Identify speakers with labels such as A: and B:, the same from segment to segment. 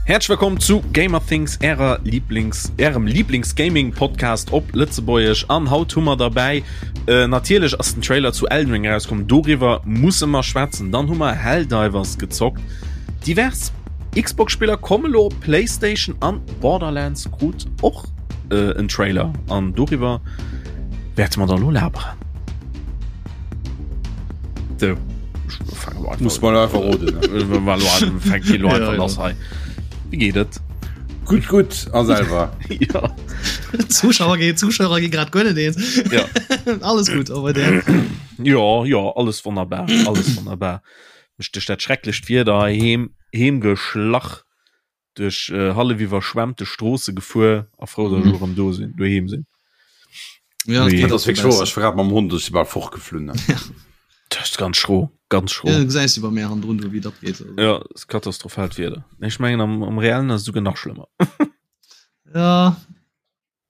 A: Häerzlech wëllkomm zu Gamerthings, ärer Lieblings, ärem Lieblings-Gaming-Podcast op Lëtzebuergesch. An haut hu mer derbäi, äh, natierlech ass den Trailer zu Elden Ring erauskomm, doriwwer musse mer schwätzen. Dann hu mer Helldivers gezockt, divers Xbox-Spiller komme lo op PlayStation an Borderlands krut och äh, en Trailer. An doriwwer wäerte mer dann lo laberen. So.
B: Muss man einfach roden.
A: Wie geht et?
B: Gut gut a selber.
A: ja.
C: Zuschauer ge Zuschauer gi grad gönne den.
A: Ja.
C: alles gut aber der.
A: Ja ja alles wunderbar alles wunderbar. Mech duerch dat schrecklecht Wieder heem heem geschlach duerch äh, hallef iwwerschwemmte Stroosse gefuer a frou, dass ech erëm do sinn, doheem sinn.
C: Ja,
B: nee. das ist wirklich ich war mam Hund ich war fortgeflunn.
A: Ja. Das ist ganz schro ganz schro.
C: Ja, gesäis du bei mir han drun wie dat geht.
A: Ja, ist katastrophalt Wieder. Ich mengen am, am reellen ass sogar nach schlimmer.
C: ja.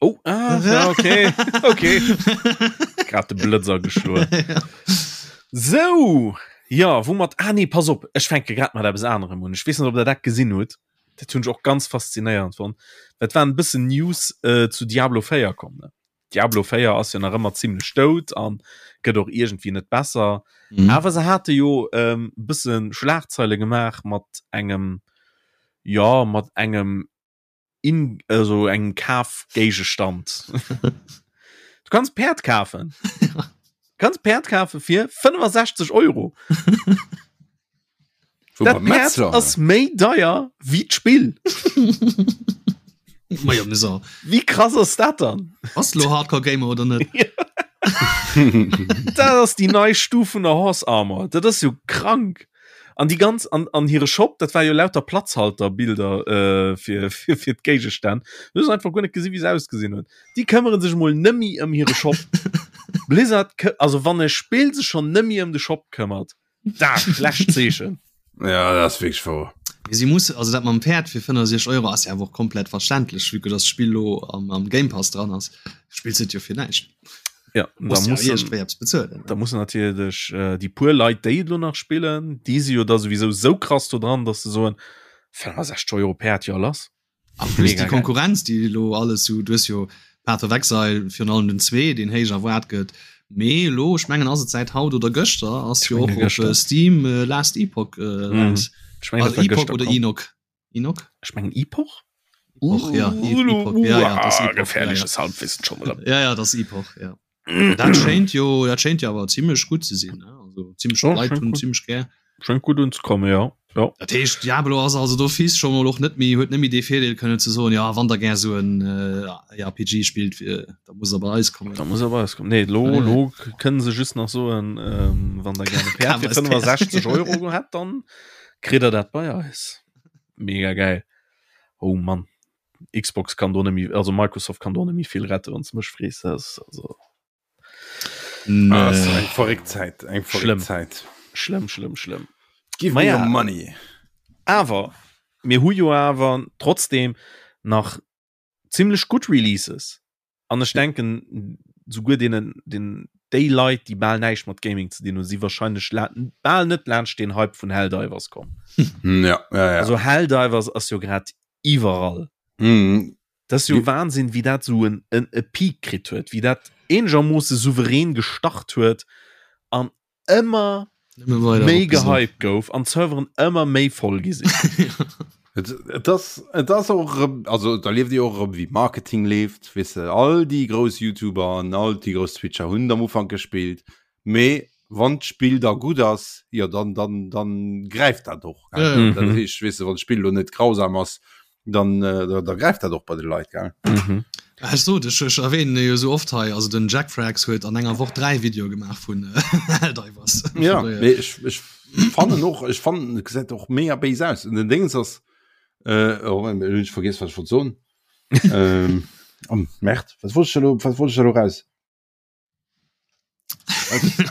A: Oh, ah, ja, okay. Okay. Grad de Blëtzer geschloen.
C: ja.
A: So, ja, woumat ah nee, pass op, ech fänke grad mat eppes anerem un. Ech weess net, ob der dat gesinn hutt. Dat hunn ech och ganz faszinéierend fonnt. Dat waren e bëssen News äh, zu Diablo 4 komm, ne? Diablo 4 ass jo nach ëmmer zimmlech dout an gëtt och iergendwéi net besser.
C: Mhm.
A: Awer se hate jo ähm, bësse Schlagzeile gemaach mat engem, ja, mat engem in also engem Kafgéigestand. Du kanns Päerd kafen. Du kanns Päerd kafe fir 65 Euro.
B: Wo
A: Dat
B: beim
A: Päerd
B: Metzler,
A: ass méi deier wéi d'Spill.
C: Ma ja, so.
A: Wéi krass ass dat dann?
C: Ass lo Hardcore Gamer oder net?
A: Dat ass déi nei Stuf vun der Horse Armor. Dat ass jo krank. An déi ganz an, an hire Shop, dat war jo lauter Platzhalterbilder äh, fir, fir, fir d'Géigestänn. Du hues einfach guer net gesi wéi se ausgesinn hunn. Déi këmmere sech mol nëmmi ëm hire Shop. Blizzard, also wann e Spill sech schonn nëmmi ëm de Shop këmmert, dat schlecht Zeechen.
B: Ja, dat ass wierklech wouer.
C: Mee si muss, also dat mam Päerd fir 65 Euro ass jo awer och komplett verständlech, vue que dass d'Spill lo am, am Game Pass dran ass, spills et jo fir näischt.
A: Ja, da
C: muss
A: muss
C: bezuelen
A: da muss natierlech äh, déi puer Leit déi lo nach spillen, déi si jo da sowieso sou krass do dran, dass se soen 65 Euro Päerd jo lass.
C: An plus déi Konkurrenz déi lo alles sou du hues jo Path of Exile virun allem den 2 deen héich erwaart gëtt, mee lo ech mengen ass et säit haut oder gëschter ass jo och op Steam Last Epoch eraus. Also Epoch oder Enoch? Enoch?
A: Ech mengen Epoch?
C: Epoch, ja. Epoch, ja, ja, das Epoch,
A: gefährliches
C: ja, ja.
A: Halbwissen schon wieder.
C: Ja, ja, das Epoch, ja. Dat schéint jo, dat schéint jo awer zimmlech gutt ze sinn, ne? Also zimmlech
A: Ja,
C: Leit
A: schéint
C: hunn
A: gut.
C: zimmlech gär.
A: Schéngt gutt unzekommen, ja. Ja.
C: Dat heescht Diablo ass also d'office scho mol och net méi, huet net méi dee Virdeel kënnen ze soen, ja wann der gär sou en äh, RPG spillt, äh, da muss der bei eis kommen.
A: Da muss er bei eis kommen. Nee, lo,
C: Nee.
A: lo kënnen se just nach soen, ähm, wann der gerne Päerd
C: Kaf
A: fir
C: eis Päerd.
A: 65 Euro hätt, dann kritt der dat bei eis. Mega geil. Oh Mann. Xbox kann do nemmi also Microsoft kann do nemmi vill rette wann mech frees also
C: nee.
B: ah, eng verréckt Zäit eng
A: schlimm
B: Zäit
A: schlimm schlimm schlimm
B: Give me your money
A: awer mir hu jo awer trotzdem nach ziemlech gutt Releases An ech denken souguer deenen den déi Leit déi bal näischt mat Gaming ze dinn hunn si wahrscheinlech la bal net laanscht deen Hype vun Helldivers komm.
B: Ja, ja, ja.
A: Also Helldivers ass jo grad iwwerall.
B: Mhm.
A: Dat ass jo Wahnsinn wéi dat sou en en e Peak kritt huet, wéi dat eenegermoosse souverän gestart huet an ëmmer méi gehypt gouf an d'Serveren ëmmer méi voll gi sinn.
B: Et ass et ass och erëm, also da lieft Dir och erëm wéi Marketing leeft, weess de, all déi grouss YouTuber an all déi grouss Twitcher hunn et am Ufank gespillt, mee wann d'Spill da gutt ass, jo dann dann dann gräift dat och, gell. Dat heescht, weess de, wann d'Spill elo net grausam ass, dann äh, da, da gräift dat och bei de Leit gell.
A: Mhm.
C: Ech sot ech ech erwähnen e jo sou oft hei, also den Jack Frags huet an enger Woch 3 Videoe gemaach vun Helldivers.
B: Ja, mee ech, ech fannen och ech fannen et gesäit och mega béis aus. Und den Dingens ass äh, oh, hunn ech vergiess wat ech wollt soen. ähm, oh, Merd, wat wollt ech elo wat wollt ech elo raus?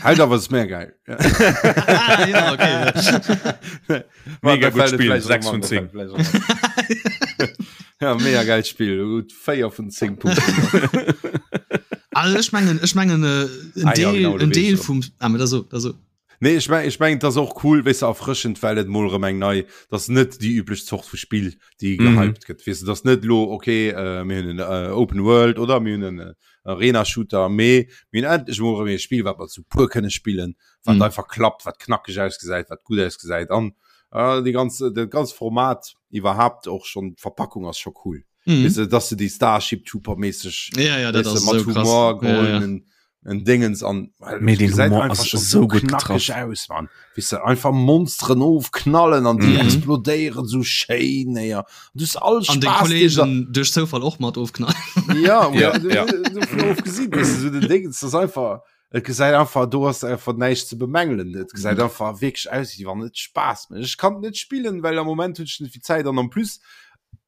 B: Halt awer ist mehr geil.
C: Ah, ja, okay.
A: Mega gut Spiel, 6 vun 10.
B: Ja, mega geil Spiel gut 4 vun 10 Punkten.
C: Also ech mengen ech mengen äh, en
B: Ah, ja,
C: Deel
B: genau, du
C: en
B: weess
C: Deel
B: schon.
C: vum ah, da so, da so.
B: Nee, ech meng, ech meng, dat ass och cool, weess de, erfrëschend, well et mol erëm eng nei, dat ass net déi üblech Zort vu Spill, déi mhm. gehypt gëtt. Weess de, dat ass net lo, okay, äh, mir hunn en äh, Open World oder mir hunn en äh, Arena-Shooter, mee mir hunn endlech mol erëm e Spill, wat mer zu puer kënne spillen, wat mhm. einfach klappt, wat knackeg ausgesäit, wat gutt ausgesäit. An äh, déi ganz, dat ganz Format iwwerhaapt och schon, d'Verpackung ass scho cool. Mhm. Weißt du, dass du die Starship Trooper mäßig
C: ja, ja, das
B: weißt du, mat
C: so
B: Humor
C: ja, ja.
B: en Dingens an
A: Mee den Humor ass so gut getraff
B: aus man weißt du, einfach Monsteren ofknallen an die mhm. explodéieren so schéin ja. du all
C: an den Kollegen duerch Zoufall och mat ofknallen
B: ja,
A: ja, ja.
B: So, weißt du, so den Dingens das einfach Et gesäit einfach do ass einfach näischt ze bemängelen. Et gesäit mhm. einfach wierklech aus, wéi wann et Spaass mécht. Ech kann net spillen, well am Moment hunn ech net vill Zäit an en plus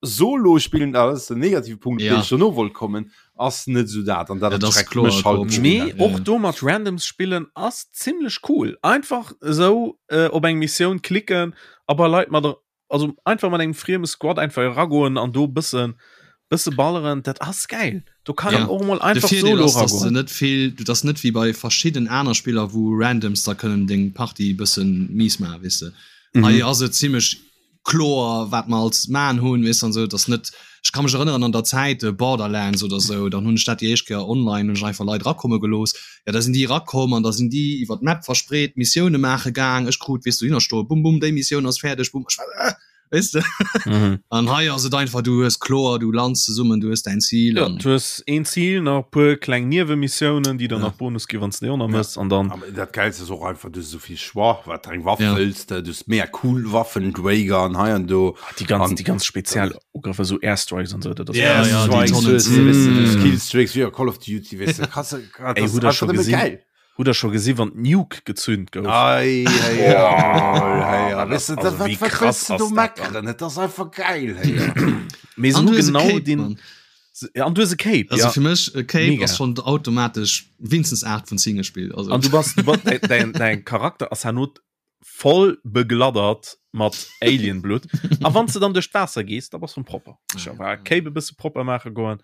B: Solo spillen alles den negative Punkt ja. schon no wollt kommen ass net so dat an dat
C: ja, das
B: kloer,
A: halt nee, ja. och do mat Randoms spillen ass ziemlech cool einfach so äh, op eng Missioun klicken aber Leit mat der also einfach mat engem frieme Squad einfach eragoen an do bëssen bësse balleren, dat ass gäil. Do kann
C: ja.
A: een och mol einfach
C: De Virdeel
A: solo
C: ass, dass du
A: eragoen.
C: net vill, du dass net wéi bei verschidden aner Spiller wou Randoms da kënnen deng Partie bëssen mies maachen, weess de.
A: Mhm.
C: Hei ass et zimmlech kloer wat mer als maan hunn, weess de an sou, dass net, ech ka mech erënneren an der Zäit Borderlands oder sou, dann hunn ech dat déi éischt Kéier online, hunn ech einfach Leit erakomme gelooss, ja da sinn déi erakomm an da sinn déi iwwer d'Map verspreet Missioune maache gaang, ech krut weess dohinner stoe bum bum déi Missioun ass fäerdeg bum, ech war äh, weess de
A: Mhm.
C: an hei ass et einfach du hues kloer du lands zesummen du hues däin Zil
A: Ja,
C: an
A: du hues een Zil, nach e puer kleng Niewemissionen, déi der
C: Ja.
A: nach Bonus gi wann s de déi och nach
B: Ja.
A: mëss an dann
B: Aber dat Geilste ass och einfach, du hues esou vill Choix, wat eng Waff
C: Ja.
B: wëlls de, du hues mega cool Waffen, d'Raygun hei an do.
A: Ah, déi ganz
B: An-
A: déi ganz speziell Ugrëffer, esou Airstrikes an sou, dat ass
C: Ja, ja, déi
B: Airstrikes,
C: Tonnen.
B: hues du, weess du, du hues
A: Mm.
B: Killstreaks, wéi a Call of Duty, weess du, kannst du, dat
A: Ey,
B: ass
A: hutt der
B: einfach
A: scho
B: nëmme
A: gesinn?
B: geil.
A: Hutt der scho gesi wann d'Nuke gezünd gouf?
B: Ei, hey,
A: Oh,
B: hey,
A: dat
B: weißt du,
A: ass-
B: dat,
A: also
B: wat,
A: wéi
B: wat
A: krass
B: willst du do
A: ass dat dann?
B: meckeren? Et ass einfach geil, hey.
A: Mee se
C: An
A: hu
C: du hues e
A: genau
C: Cape,
A: den
C: Mann.
A: se- ja, an du hues e Cape,
C: Also
A: ja.
C: fir mech e Cape
A: Mega.
C: ass schon automatesch winstens 8 vun 10 gespielt also
A: An du bass, du bass, däin, däin, däin Charakter ass herno voll begladdert mat Alienblut. A wann du dann duerch d'Waasser gees, da bass du propper. Ech
C: Ah,
A: war
C: ja.
A: Cape e bësse propper maache goen.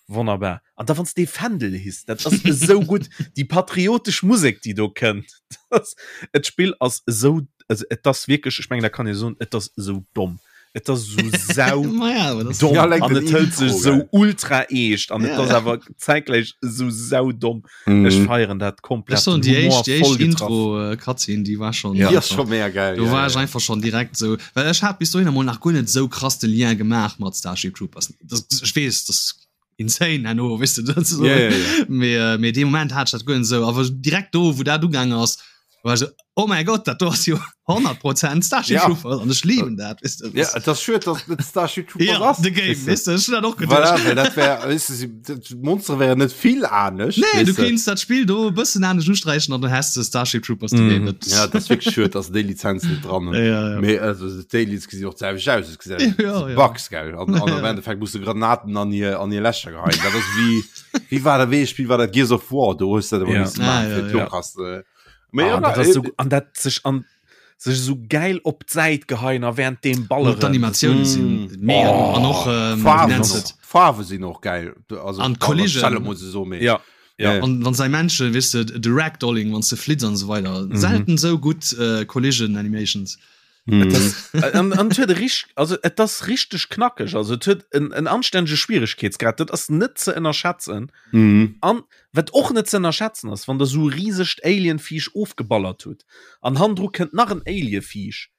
A: Wonnerbar. An da wann du dee Fändel hiss, dat ass esou gutt. Déi patriotesch Musek, déi do kënnt. Das, et Spill ass esou, also et ass wierklech, ech mengen, dat kann ee soen, et ass esou domm. Et ass esou sau
C: Ma ja, aber das
A: domm
B: Ja, like
A: an
B: den
A: et hëlt sech
B: Intro,
A: esou
B: gell.
A: ultra eescht an et
C: Ja.
A: ass awer zäitgläich esou sau domm. Ech
B: Mhm.
A: feieren dat komplett.
C: Ech soen
A: Den
C: déi
A: Humor
C: éischt déi
A: voll
C: éischt
A: getraff.
C: Intro äh, Cutscene déi war schon
A: Ja.
B: Die ass scho mega geil.
C: Do
B: ja,
C: war
B: ja.
C: ech einfach schon direkt sou well ech hat bis dohinner mol nach guer net sou krass de Lien gemaach mat Starship Troopers. Das, ech weess das insane herno weess de dat so.
B: Ja, ja, ja.
C: Mee äh, mee dee Moment hat ech dat guer net sou awer direkt do wou dat ugaang ass war ech sou oh mäi Gott dat do ass jo 100 Prozent Starship
B: Ja.
C: Troopers an ech lieben dat weess de.
B: Ja, et ass schued, dass et net Starship Troopers
C: ja,
B: ass.
C: the game
B: weess de.
C: weess de ech hun dat och geduecht.
B: Voilà, well dat wär, weess de, si- dat- d'Monstere wären net vill anescht.
C: Nee, du
B: weess de.
C: kéints dat Spill do e bëssen anescht usträichen an du häss de Starship Troopers the
A: Mhm.
C: Game. Dat,
B: Ja, dat ass wierklech schued, dass se déi Lizenz net dran hunn.
C: ja, ja.
B: Mee also d'Aliens gesinn och d'selwecht aus, et gesäit
C: Ja, ja.
B: Bugs gell an, an am Endeffekt muss du Granaten an hir an hir Lächer geheien. Dat ass wéi wéi war dat wéi ee Spill war dat Gears of War, do hues du dat ëmmer
A: Ja.
B: missen
C: Ah,
B: maachen
C: ja,
B: fir
C: ja.
B: d'Lokas. Äh, mee
A: Ah,
B: ja,
A: an dat ass
B: äh,
A: so, an dat sech an sech esou geil op d'Säit geheien a während deem
C: Och
A: balleren.
C: d'Animatioune sinn
B: Mm.
C: mega
A: Oh,
C: an och ähm, wie
B: Farwen
C: nennt
B: och,
C: et?
B: Farwe sinn och geil. Also
C: An d'Collision.
B: Stelle muss ich so mee.
A: Ja, ja.
B: Ja.
C: An wann sei Menschen weess de de Ragdolling wann s de flitts an esou weider
A: Mhm.
C: selten sou gutt äh, Collision Animations.
B: Mm.
A: An, an et huet e rich, also et ass richteg knackeg, also et huet en, en anstännege Schwieregkeetsgrad, dat ass net ze ënnerschätzen.
B: Mm.
A: An wat och net ze ënnerschätzen ass, wann der sou e risegt Alienviech ofgeballert hutt an hannendru kënnt nach en Alieviech,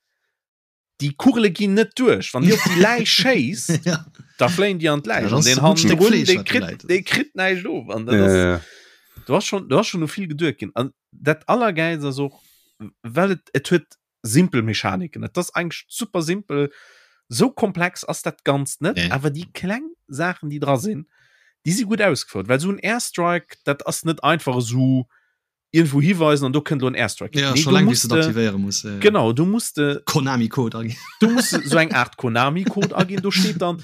A: déi Kugele ginn net duerch. Wann dir op déi Läich schéisst,
C: Ja.
A: da fléien déi an d'Läich.
C: Dat
A: An
C: ass
A: deen
C: e gutt Stéck
A: hannendrun,
C: Fleesch,
A: dee
C: wat do
A: kritt,
C: läit.
A: dee kritt näischt of. An dat
B: Ja,
A: ass,
B: ja.
A: do ass schon, do ass schon u vill geduet ginn. An dat Allergäilst ass och, well et, et huet simpel Mechaniken. Et ass eigentlech super simpel. Sou komplex ass dat Ganzt net,
C: Nee.
A: awer déi kleng Saachen, déi dra sinn, déi si gutt ausgefouert. Well sou en Airstrike, dat ass net einfach esou iergendwou hiweisen an do kënnt elo en Airstrike.
C: Ja,
A: Nee,
C: schon
A: du
C: laang, wéi
A: musst
C: s de
A: de,
C: aktivéiere muss. Ja, ja.
A: genau, du musst de,
C: Konami-Code aginn.
A: du musst sou eng Art Konami-Code aginn. Do steet dann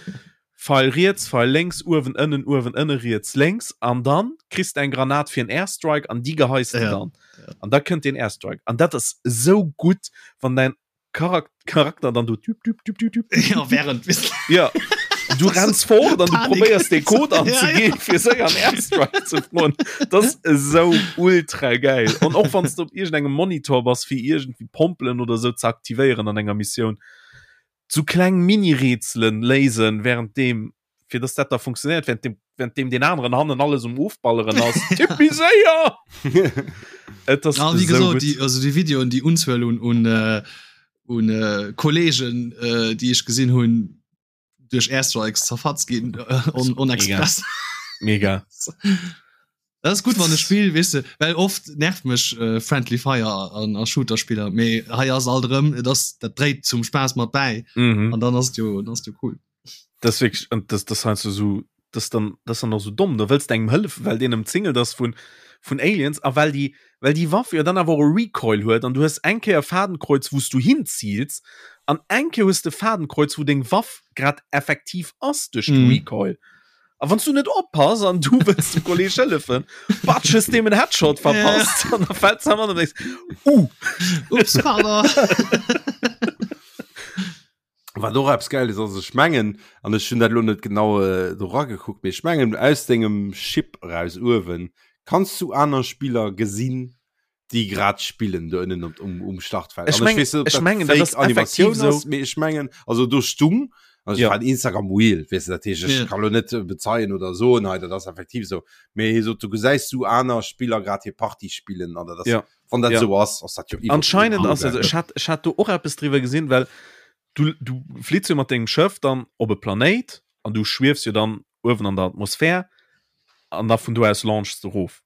A: Pfeil riets, Pfeil lénks, uewen, ënnen, uewen, ënne, riets, lénks an dann kriss de eng Granat fir en Airstrike an déi geheis de
C: Ja,
A: dann. An da kënnt den Airstrike. An dat ass esou gutt, wann däin Charak Charakter dann do tüp, tüp, tüp, tüp, tüp.
C: Ja, während
A: Ja. Du renns fort an du probéiers de Code anzeginn fir séier an Airstrike ze froen. Dat ass esou ultra geil. An och wann s du op iergendengem Monitor bass fir iergendwéi Pompelen oder esou ze aktivéieren an enger Missioun, sou kleng Mini-Rätselen léisen währenddeem fir dass dat da funktionéiert während dem während dem den aneren hannen alles um ofballeren ass. Tipp méi séier!
C: Et ass Ja, wéi esou gesot, gutt. déi, also déi Videoen, déi Unzuel un, un, äh, un äh, Kollegen, äh, déi ech gesinn hunn, duerch Airstrikes zerfatzt ginn, äh, on, on express.
A: Mega.
C: Dat ass gutt wann e Spill, weess de, well oft nervt mech äh, Friendly Fire an a Shooter-Spiller, mee hei ass alt erëm, et ass, dat dréit zum Spaass mat bäi
A: Mhm.
C: an dann ass et jo, dann ass et jo cool.
A: Das ist wirklich, und das, das heißt so, das dann, das dann och so domm, da wëlls de engem hëllefen, well deen ëmzingelt ass vun, vun Aliens a well déi, well déi Waff jo dann awer och e Recoil huet an du hues eng Kéier e Fadenkreuz, wou s du hinziils an eng Kéier hues de e Fadenkreuz, wou deng Waff grad effektiv ass duerch de
C: Mhm.
A: Recoil. A wann s du net oppass an du wëlls dem Kolleg hëllefen, batsch hues deem en Headshot verpasst an da fält se am an denkst, uh!
C: Ups, pardon.
B: Wat och eppes Geiles ass, ech mengen, an ech hunn dat elo net genau äh, do ragekuckt, mee ech mengen aus dengem Ship eraus uewen kanns du aner Spiller gesinn, déi grad spillen do ënnen op, um, um Startfeld.
A: Ech
B: An
A: meng-
B: weess net, ob
A: ech
B: dat
A: mengen, dat
B: fake
A: ass effektiv
B: Animatioun
A: sou.
B: ass, mee ech mengen, also do stung, also
A: Ja.
B: ech war Instagram Reel, weess du, dat heescht, ech
C: Ja.
B: kann lo net äh, bezeien oder soen, hei, dat ass effektiv sou. Mee hie sot, du gesäis du aner Spiller grad hir Partie spillen an dat ass
A: Ja.
B: Wann dat
A: Ja.
B: sou ass, ass dat jo iwwer-
A: Anscheinend ass
B: geil.
A: also ech hat ech hat do och eppes driwwer gesinn, well du du flitts jo mat dengem Schëff dann op e Planéit an du schwiefs jo dann uewen an der Atmosphär an da vun do aus launchs de rof.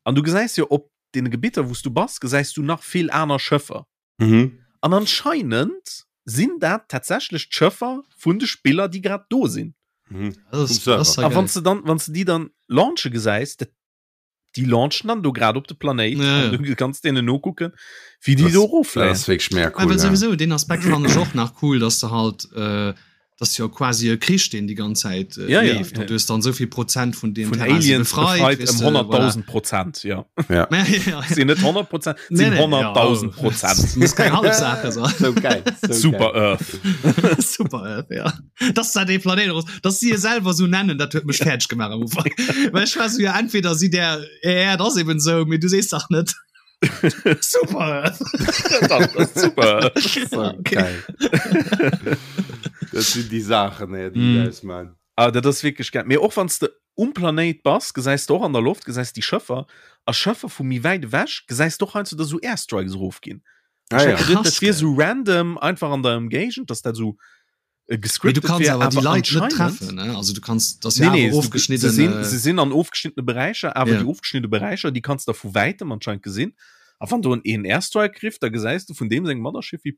A: An du gesäis jo op deene Gebitter wou s du bass, gesäis du nach vill aner Schëffer.
B: Mhm.
A: An anscheinend sinn dat tatsächlech d'Schëffer vun de Spiller, déi grad do sinn.
B: Mhm.
C: Das
B: Vum
C: ist,
B: Server.
C: das ist ja
A: A wann
C: geil.
A: s de dann wann s de déi dann launche gesäis, dat déi launchen dann do grad op de Planéit
C: Ja, ja.
A: an du kanns deenen nokucken, wéi déi
B: Das-
A: do eroffléien.
B: Das ass wierklech mega
C: Ah,
B: cool.
C: well
B: ja.
C: sowieso den Aspekt fand ech och nach cool, dass du halt äh, dass jo quasi e Krich deen die ganz Zäit äh,
A: Ja, ja,
C: leeft
A: ja.
C: und du hast dann soviel Prozent vun dem
A: Vun
C: Terrain si
A: Aliens
C: befreit,
A: befreit
C: weess
A: ëm
C: de,
A: 100.000 Prozent, ja.
B: Ja.
C: voilà. Ja, ja, ja.
A: Sinn net 100 Prozent,
C: Nee,
A: sinn
C: nee, ja,
A: 100.000
C: oh.
A: Prozent.
C: Muss keng halb Sache sein.
B: So geil. So
A: Super
B: Geil.
A: Earth.
C: Super Earth, ja. Dass da dee Planéit raus, dass si e selwer sou nennen, dat huet mech fäerdeg gemaach am Ufank. Well ech war sou, ja, entweder si der, ja, dat ass eben sou, mee du sees dach net Super Earth.
A: Dat ass super Earth.
B: So
C: Ja, okay.
B: geil. Dat sinn déi Saachen, ey, déi
C: Mm.
B: aus man.
A: Ah, dat ass wierklech geil. Mee och wann s de um Planéit bass, gesäis de och an der Loft, gesäis déi Schëffer a Schëffer vu méi wäit ewech, gesäis de och heiansdo, dass esou Airstrikes erofginn.
B: Ah, ja.
A: Ech hat geduet, dat
C: Krass,
A: wier
C: gell.
A: esou random einfach an der Ëmgéigend, dass dat esou äh,
C: Mee du
A: gescriptet
C: kannst
A: wär,
C: awer déi
A: awer
C: Leit net
A: anscheinend
C: treffen, ne? Also du kannst das
A: Nee,
C: ja
A: nee,
C: awer
A: du,
C: ofgeschnidden.
A: se sinn,
C: äh,
A: se sinn an ofgeschnittene Beräicher, awer
C: Ja.
A: déi ofgeschnittene Beräicher, déi kanns de vu wäitem anscheinend gesinn. A wann do en een Airstrike rifft, da gesäis du vun deem sengem Mothership wéi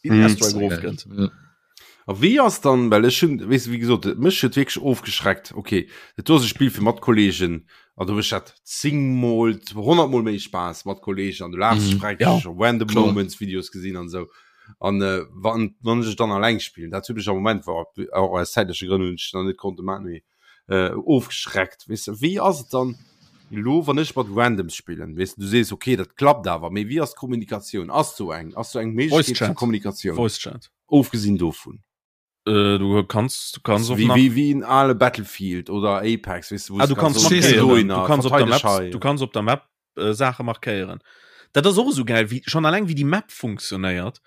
A: wéi den
B: Mhm.
A: Airstrike erofkënnt.
C: Ja.
B: A wéi ass dann, well ech hunn, weess de, wéi gesot, et mech huet wierklech ofgeschreckt, okay, dat do ass e Spill fir mat Kollegen, an do mécht dat zéngmol, honnertmol méi Spaass mat Kollegen an du laachs
C: Mhm.
B: dech freck,
A: Ja,
B: ech hu random
C: kloer.
B: Moments Videos gesinn an esou. An äh, wann, wann ech et dann alleng spillen, dat huet mech am Moment, war och aus zäitleche Grënn hunn ech nach net konnte maachen, mee äh, ofgeschreckt, weess de. Wéi ass et dann elo, wann ech mat Randoms spillen, weess de, du sees, okay, dat klappt awer, mee wéi ass d'Kommunikatioun? Ass do eng, ass do eng
A: Voice
B: Méiglechkeet zur
A: Chat.
B: Kommunikatioun?
A: Voice Chat.
B: Ofgesinn dovun.
A: Äh, du kanns, du kanns och
B: Wéi,
A: nach.
B: wéi, wéi en ale Battlefield oder Apex, weess de, wou
A: Ah, du
B: kanns
A: kanns
B: soen,
C: Verstees
B: okay,
C: du?
A: markéieren.
B: dohinner,
A: Du kanns op der
B: verteideg
A: Map,
B: hei.
A: du kanns op der Map äh, Saache markéieren. Dat ass och esou geil, wéi schon alleng wéi déi Map funktionéiert.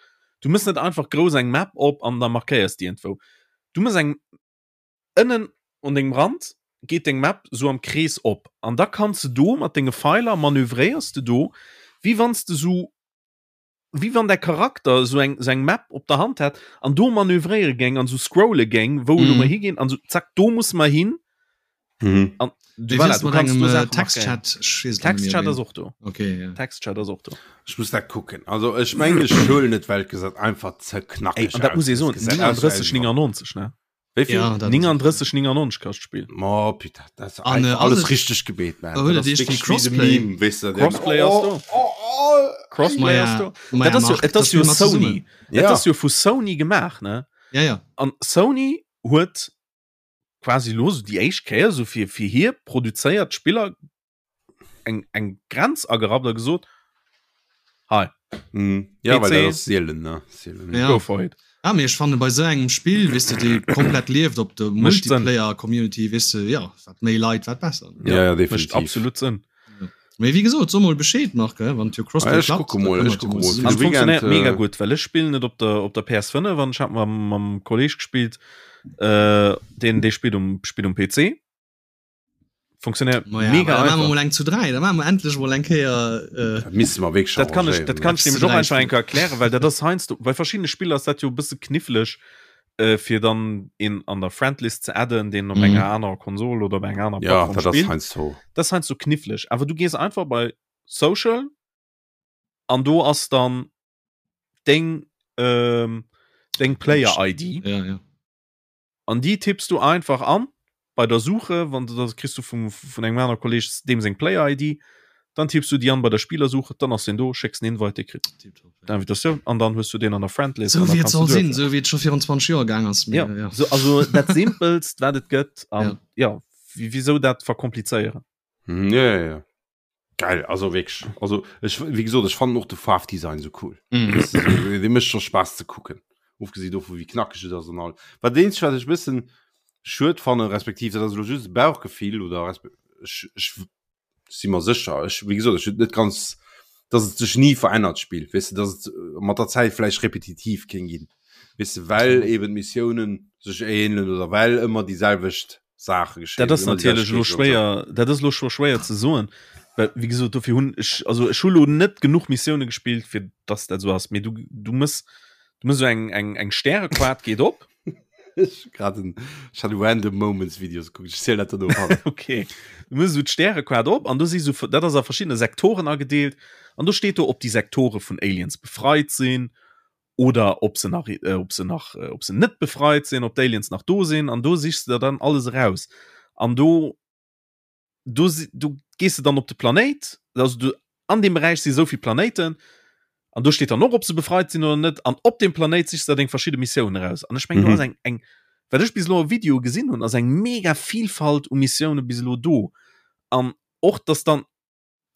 A: Du mëss net einfach grouss eng Map op an da markéiers déi iergendwou. Du mëss eng ënnen un dengem Rand geet deng Map sou am Krees op an da kanns de do mat denge Feiler manövréiers de do, wéi wann s de sou wéi wann däi Charakter sou eng sou eng Map op der Hand hätt an do manövréiere géing an sou scrolle géing, wou elo
C: Mhm.
A: mer higinn an sou zack do musse mer hin
B: Mhm.
A: an du,
C: Wéi
A: voilà,
C: wär's
A: du
C: mat
A: kanns
C: engem
A: do
C: äh,
A: Saache markéieren.
C: Textchat? Ech weess et net méi,
A: Textchat
C: wéi.
A: ass och do.
C: Okay, ja.
A: Textchat ass och do.
B: Ech muss dat kucken. Also ech mengen, ech huelen et, well et gesäit einfach ze
A: Ey,
B: knackeg
A: an dat
B: aus.
A: muss ee
B: Et
A: soen,
B: gesäit aus wéi eng
A: 39,99 ne?
B: Wéi vill?
C: Ja, dat ass
A: 39, 99 kascht d'Spill.
B: Oh, putain, dat ass
C: An, äh,
B: einfach alles
C: ass et-
B: richteg gebeet, man.
C: Oh, huet
B: Dat
C: et
B: ass
C: eescht
B: wierklech
C: wéi
B: wéi de
C: Crossplay?
B: Meme, weess de, deen-
A: Crossplay ass do.
B: Oh, oh, oh.
A: Crossplay
C: Maja,
A: ass do.
C: Maja,
A: Dat ass jo,
C: Marc,
A: et ass
C: das
A: jo
C: spielen wir
A: Sony.
C: zusammen.
A: Et
B: Ja.
A: ass jo vu Sony gemaach, ne?
C: Ja, ja.
A: An Sony huet quasi lo sou déi éischt Kéier sou fir, fir hir produzéiert Spiller eng, eng Grenz agerappt a gesot, hei,
B: Mhm. Ja, well
A: PC.
B: dat ass seelen, ne? Seelen,
C: Ja.
A: go for it.
C: Ah, mee ech fannen bei sou engem Spill, weess de, dee komplett lieft op der
A: Mécht Sënn.
C: Multiplayer-Community, weess de, ja, wat méi Leit, wat besser.
B: Ja, ja,
A: Mécht
B: definitiv.
A: absolut Sënn.
C: Mee wéi gesot, so mol Bescheed, Marc, hè, wann et jo
B: Ah,
C: Crossplay
B: ech
C: klappt,
B: kucke
C: da
B: mol,
C: kënne
B: ech
C: mer et jo
B: kucke
C: mol
B: mol.
C: zesumme
A: An
B: De
A: et funktionéiert
B: Weekend,
A: mega
B: äh,
A: gutt, well ech spillen et op der, op der PS5 an ech hat mam, mam Kolleg gespillt, äh, deen, dee spillt um, spillt um PC. Funktionéiert
C: Ma ja,
A: mega
C: da maache mer
A: einfach.
C: mol eng zu 3, da maache mer endlech mol eng Kéier äh,
B: Dat misste mer wierklech
A: Dat kann ech, dat kann ech
C: Eppes zu
A: nämlech och
C: 3
A: einfach eng
C: spillen.
A: Kéier erklären, well dat ass heiansdo, bei verschiddene Spiller ass dat jo e bësse kniffleg, äh, fir dann een an der Friendlist ze adden, deen op
C: Mhm.
A: enger anerer Konsol oder op enger anerer
B: Ja,
A: Plattform
B: dat ass
A: spillt.
B: heiansdo.
A: Das ass heiansdo kniffleg. Awer du gees einfach bei Social an do ass dann deng, ähm, deng Player-ID.
C: Ja, ja.
A: An déi tipps du einfach an bei der Suche, wann du das kriss du vum vun engem aner Kolleg deem seng Player ID, dann tipps du déi an bei der Spillersuche, dann ass deen do, schécks en Invite, dee kritt d'Invitatioun an dann hues du deen an der Friendlist.
C: Sou wéi et soll sinn, sou wéi et scho virun 20 Joer gaang ass.
A: Ja, ja. So, also dat simpelst wat et gëtt an ja, ja wieso dat verkomplizéieren.
B: Ja, ja, ja. Geil, also wierklech. Also ech, wéi gesot, ech fannen och de Faarfdesign sou cool.
C: Mm.
B: Weißt du, so, dee mécht scho Spaass ze kucken. Ofgesi dovu wéi knackeg et ass an all. Wat eenzegt wat ech e bëssen schued fannen, respektiv dat ass elo just e Bauchgefill oder resp ech, ech si mer sécher, ech wéi gesot, ech hunn et net ganz, dass et sech ni verännert d'Spill, weess de, dass et mat der Zäit vläicht repetitiv kéint ginn, weess de, well eben d'Missiounen sech ähnelen oder well ëmmer déi selwecht Saache
A: geschéien. Dat ass natierlech elo schwéier, dat ass elo scho schwéier ze soen, well wéi gesot dofir hunn ech, also ech hu lo net genuch Missioune gespillt fir dass dat esou ass, mee du du mëss du mëss esou eng eng eng Stärequart geet op.
B: Ech hu grad en ech hat Random Moments Videos gekuckt, ech zielen dat dann no.
A: Okay, du mëss esou d'Stärequart op an do si sou, dat ass a verschiddene Sektoren agedeelt an do steet do ob déi Sektore vun Aliens befreit sinn oder ob se nach äh, ob se nach äh, ob se net befreit sinn, ob d'Aliens nach do sinn an do sichs du der dann alles eraus. An do do du gehst du dann op de Planéit, also du an dem Beräich si souvill Planéiten an do steet dann och ob se befreit sinn oder net an op dem Planéit sichs du der deng verschidde Missiounen eraus. An ech meng mhm. do ass eng eng wat ech bis elo e Video gesinn hunn, ass eng mega Vielfalt u Missioune bis elo do. An och dass dann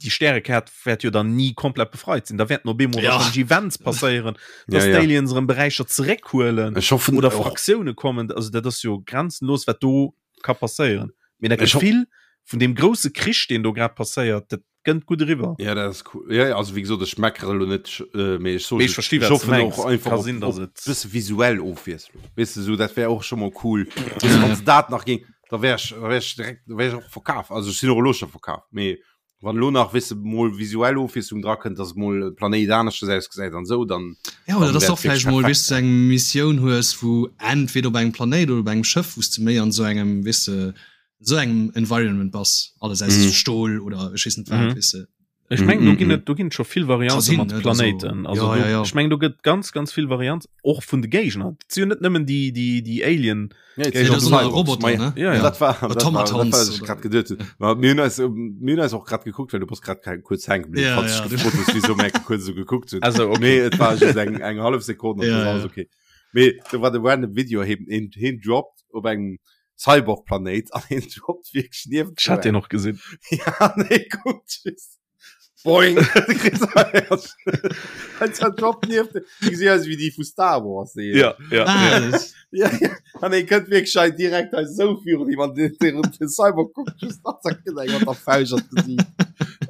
A: déi Stärekäert wäert jo dann ni komplett befreit sinn. Da wäerten op eemol
C: Ja.
A: wahrscheinlech Events passéieren, dass
B: Ja, ja.
A: d'Aliens erëm Beräicher zeréckhuelen
B: Ech hoffen
A: oder
B: och-
A: Fraktioune kommen. Also dat ass jo grenzenlos, wat do ka passéieren. Mee dat
B: Ech ho-
A: Gefill vun deem grousse Krich, deen do grad passéiert, dat kënnt gutt eriwwer.
B: Ja, dat ass cool. Ja, ja, also wéi gesot, ech meckere elo net, äh, mee ech soe
A: Mee ech
B: just,
A: versti,
B: ech
A: wat s du
B: hoffen
A: mengs.
B: och einfach
A: Ka
B: op,
A: sinn, dass
B: op
A: et-
B: bësse visuell Ofwiesslung. Weess de, sou dat wär och scho mol cool. Weess de, wann se dat nach géing, da wär ech, da wär ech direkt, da wär ech och verkaf. Also ech sinn och elo scho verkaf. Mee wann elo nach, weess de, mol visuell Ofwiesslung dra kënnt, dass mol e Planéit aneschters ausgesäit an esou, dann,
C: Ja, oder
B: dann
C: dass
B: wär
C: du och
B: et wierklech
C: vläicht mol,
B: perfekt.
C: weess de, eng Missioun hues, wou entweder op engem Planéit oder op engem Schëff, wou s de méi an esou engem, weess de, esou engem Environment bass, alles aus
B: Mhm.
C: Stol oder ech weess net wat,
A: Mhm.
C: weess de.
A: Ech mengen, do ginn
B: Mhm.
A: et do ginn et scho vill Variante
C: sinn,
A: mat
C: ne,
A: Planéiten.
C: also-
A: Also
C: ja,
A: do,
C: ja, ja.
A: ech mengen, do gëtt ganz ganz vill Varianten och vun de Géigner. Et si jo net nëmmen déi déi déi Alien.
B: Ja,
A: Géigner,
C: dat
B: sind
C: sind
B: Cyborgs.
C: Roboter,
B: Ma ja,
C: ne?
A: Ja, ja.
B: Dat war, dat war, dat
C: Automatons
B: war, was ich
C: oder-
B: grad geduet hunn. Ma mir hunn eis, mir hunn eis och grad gekuckt, well du bass grad kein, kuerz hänke bliwwen,
C: Ja,
B: falls
C: ja.
B: du gefrot hues, wieso mir kuerz esou gekuckt hunn.
A: Also okay.
B: Nee, et war just eng, eng hallef Sekonn, an
C: Ja,
B: das war
C: ja.
B: alles okay. Mee do war de random Video, heen, heen, heen droppt op engem Cyborg-Planéit an heen droppt wierklech nieft
A: Ech hat deen och gesinn.
B: Ja, an hee kuckt just. Boing! Droppt nieft. Déi gesi aus wéi déi vu Star Wars. Déi.
A: Ja, ja.
C: Ah,
A: ja.
C: das-
B: Ja, ja. An hee kënnt wierklech hei direkt hei sou virun him an den, den, den Cyborg kuckt just an zack, kritt eng mat der Fauscht an d'Gesiicht.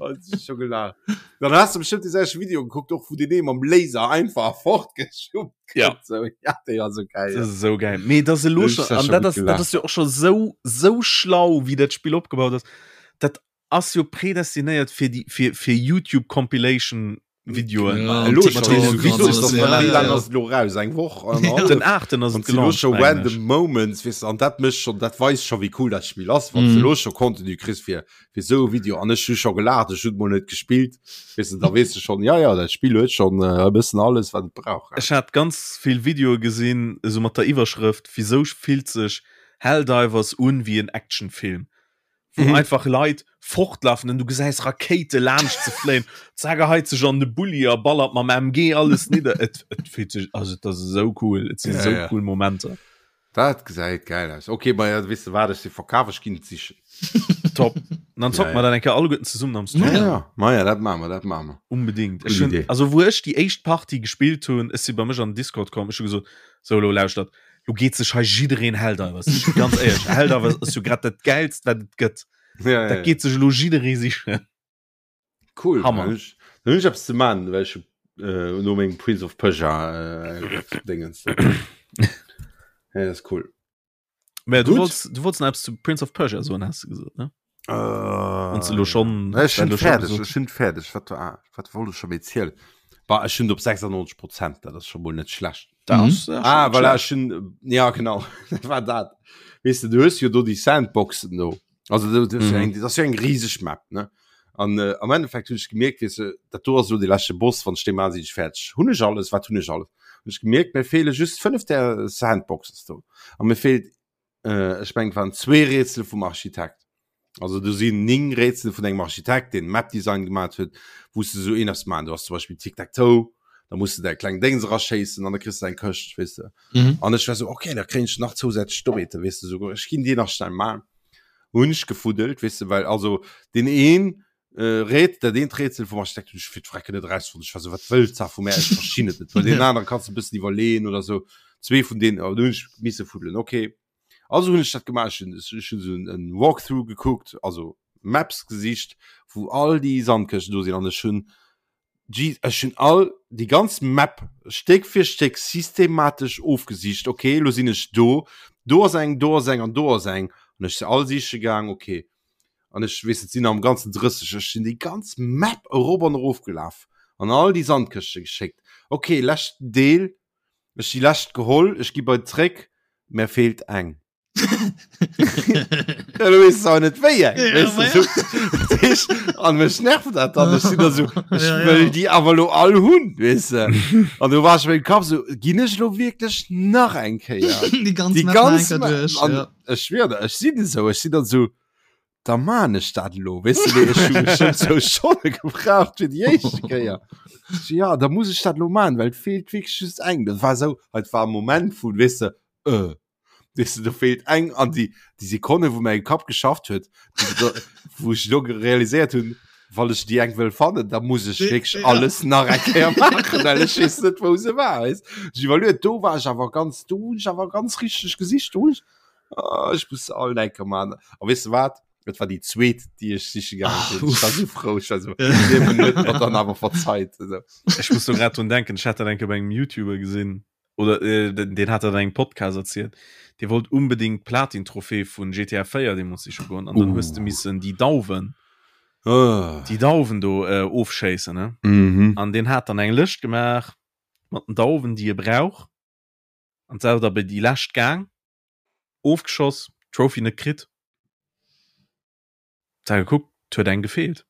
B: Oh, das ist schon gelacht. Dann hast du bestimmt die selche Video geguckt, och wou den ee mam Laser einfach fortgeschubbt
A: Ja.
B: kritt. So, ja, déi war so geil.
A: Das ist so geil. Mee das elo
B: Das
A: schon,
B: ist ja
A: an
B: schon
A: dat
B: gut
A: ass, dat
B: gelacht.
A: ass jo och schon sou, sou schlau, wéi dat Spill opgebaut ass. Dat ass jo prädestinéiert fir déi, fir, fir YouTube Compilation Videoen.
C: Ja,
B: Elo
C: TikTok
B: schon,
C: an
B: wieso ist
C: alles,
B: das
C: ja,
B: wéi
C: ja,
B: lang
C: ja.
B: ass et elo raus? Eng Woch?
C: Ja.
A: Den 8. ass
B: An
A: et
B: si lo
A: gelauncht,
B: scho
A: mengen
B: random
A: ech.
B: Moments, weess de, an dat mécht schon, dat weist scho wéi cool dat Spill ass, wann
C: Mhm.
B: du lo scho Contenu kriss fir fir sou e Video an ech hu scho gelaacht, ech hunn mol net gespillt, weess de, da weess de schon, ja ja, dat Spill huet schon äh, e bëssen alles wat et brauch.
A: Ech hat ganz vill Videoe gesinn, esou mat der Iwwerschrëft, Wisou fillt sech Helldivers un wéi en Actionfilm? Wou
B: Mhm.
A: einfach Leit fortlafen an du gesäis Rakéite laanscht ze fléien, zack e heit sech an de Bulli a ballert mam MG alles nidder. Et, et fillt sech, also et ass esou cool, et sinn
B: Ja,
A: esou
B: ja.
A: cool Momenter.
B: Dat gesäit geil aus. Okay, ma ja, weess de wat, ech si verkaf, ech ginn et sichen.
A: Top. An dann zocke
B: Ja,
A: mer
B: ja.
A: dat eng Kéier alleguerten zesummen am Stream.
B: Ja, ja. Ma ja, dat maache mer, dat maache mer.
A: Unbedingt.
B: Gutt
A: Ech hunn,
B: Idee.
A: also wou ech déi éischt Partie gespillt hunn, ech si bei mech an den Discord komm, ech hu gesot, sou elo lauschtert, lo geet sech hei jiddereen Helldivers sichen. Ganz éierlech, Helldivers ass jo grad dat Gäilst, wat et gëtt.
B: Ja, ja,
A: Dat
B: ja.
A: geet sech elo jidderee sichen.
B: Cool.
A: Hammer.
B: Dann hunn ech, dann hunn ech eppes ze maachen, well ech äh, no mengem Prince of Persia äh, Dingens. Ja, das ist cool.
A: Mä du
B: Gut.
A: wollts, du wollts nach eppes zu Prince of Persia soen, has du gesot, ne?
B: Äh,
A: Wann du lo schon,
B: Ech
A: wenn
B: sinn
A: du schon
B: fäerdeg,
A: gesot
B: ech sinn fäerdeg. Wat war, wat wollt ech schon méi zielen? Bah, ech sinn op 96 Prozent, dat ass schon mol net schlecht.
A: Da
C: Mhm.
A: ass, ja, schon
B: Ah,
A: net
B: voilà,
A: schlecht.
B: ech sinn, ja genau, dat war dat. Weess de, du hues jo do déi Sandboxen do. Also du, du,
A: Mhm.
B: eng, dat ass jo eng riseg Map, ne? An äh, am Endeffekt hunn ech gemierkt, weess de, dat do ass lo de leschte Boss, wann ech dee maan, sinn ech fäerdeg. Hunn ech alles, wat hunn ech alles? Hunn ech gemierkt, mir feele just 5 där Sandboxes do. A mir feelt äh, ech mengen, et waren zwee Rätsel vum Architekt. Also do sinn 9 Rätsel vun engem Architekt, deen Map Design gemaat huet, wou s de sou een eppes maan. Du hast zum Beispill Tic-Tac-Toe, da muss du däi kleng Déngs eraschéissen an da kriss du eng Këscht, weess de.
C: Mhm.
B: An ech war sou, okay, da kréien ech nach zousätzlech Doete, weess de, sou, ech ginn déi nach schnell maan. Hunn ech gefuddelt, weess de, well also deen een äh, Rät, dat eent Rätsel vum Architekt hunn ech fir d'Frecken net erausfonnt. Ech war sou, wat wëllt se vu mär? Ech verstinn et net. Well deen anere kanns du e bëssen iwwerleeën oder sou. Zwee vun deenen, oh, do hunn ech misse fuddelen, okay. Also hunn ech dat gemaach, ech hunn ech hunn sou en Walkthrough gekuckt, also Maps gesicht, wou all déi Sandkëschten do sinn an ech hunn Jeez, ech hunn all déi ganz Map Stéck fir Stéck systematesch ofgesicht. Okay, lo sinn ech do, do ass eng, do ass eng an do ass eng. An ech se all siche gaang, okay. An ech weess et sinn am ganzen 30, ech sinn déi ganz Map erop an erof gelaf an all déi Sandkëschte geschéckt. Okay, leschten Deel, ech déi lescht geholl, ech gi bei zréck, mär feelt eng. Ja, du weess awer net wéi eng,
C: Ja,
B: weess
C: ma
B: du, so. Dat heescht, an mech nervt dat dann, ech sinn da so, ech
C: Ja, ja.
B: wëll déi awer lo all hunn, weess de. An du war ech mengem Kapp so, ginn ech lo wierklech nach eng Kéier
C: Déi ganz
B: déi
C: Map nach eng
B: ganz
C: Kéier
B: Map
C: duerch,
B: an
C: ja.
B: ech schwier der, ech sinn esou, ech sinn dann so, da maan ech dat elo, weess de, mee ech hu bestëmmt zwou Stonne gebraucht fir déi éischte Kéier. Ech so, ja, da muss ech dat elo maan, well et feelt wierklech just eng. Dat war esou, et war e Moment vun, weess de, äh, weess de, do feelt eng an déi, déi Sekonne, wou mäi Kapp geschafft huet, wou ech elo realiséiert hunn, wann ech déi eng wëll fannen, da muss ech wierklech
C: Ja.
B: alles nach eng Kéier maachen, well ech weess net, wou se war, weess. Ech iwwerluet, do war ech awer ganz, do hunn ech awer ganz richteg gesicht, do hunn ech Oh, ech muss all enke man. A weess de wat? Et war déi zweet, déi ech siche gaange
C: Ah,
B: sinn. Ech war
C: uff.
B: sou frou. Ech war sou, Liewen huet mer dann awer verzeit. Also.
A: Ech muss do grad drun denken, ech hat dat enke bei engem YouTuber gesinn oder äh, den, den hat dat an engem Podcast erzielt. Dee wollt unbedingt d'Platin-Trophée vun GTA 4 deemools siche goen an dann hues de
B: Uh.
A: missen déi Dauwen,
B: Oh.
A: déi Dauwen do äh, ofschéissen, ne?
B: Mhm.
A: An deen hat dann eng Lëscht gemaach mat den Dauwen, déi e brauch. An selwer da bei déi lescht gaang, ofgeschoss, Trophy net kritt. Da gekuckt, et huet eng gefeelt.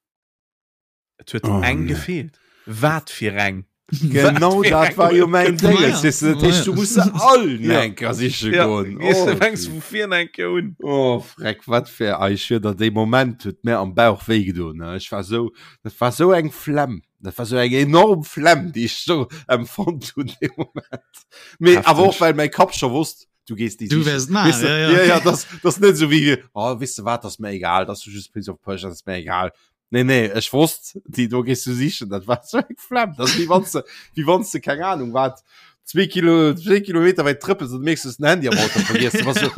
A: Et huet
B: Oh,
A: eng
B: nee.
A: gefeelt. Wat fir eng?
B: Genau
A: Wat fir
B: dat
A: eng
B: war jo
A: huet
B: mäin
A: gefeelt?
B: Dénges. Weess du, dat heescht, du muss se all
A: Ja.
B: enker siche
A: Ja,
B: goen.
A: gehst
B: Oh,
A: du fängst vu vir eng Kéier un.
B: Oh, freck, wat fir ei, ech schwör der, dee Moment huet mir am Bauch wéi gedoen, ne. Ech war sou, dat war sou eng Flemm. Dat war sou eng enorm Flemm, déi ech sou empfonnt hunn dee Moment. Mee awer och, well mäi Kapp scho wosst, du gees déi
C: Du
B: sichen.
C: wäers et maachen,
B: Weess de,
C: ja, ja.
B: ja, ja, das, das net sou wéi, oh, weess de wat, das ass mir egal, das ass just Prince of Persia, das ass mir egal. Nee, nee, ech wosst, déi do gees du sichen, dat war sou eng Flemm. Das ass wéi wann s de, wéi wann s de, keng Ahnung wat, zwee Kilo, zwee Kilometer wäit trëppels an du mierks, du hues den Handy am Auto vergiess. Du bass sou,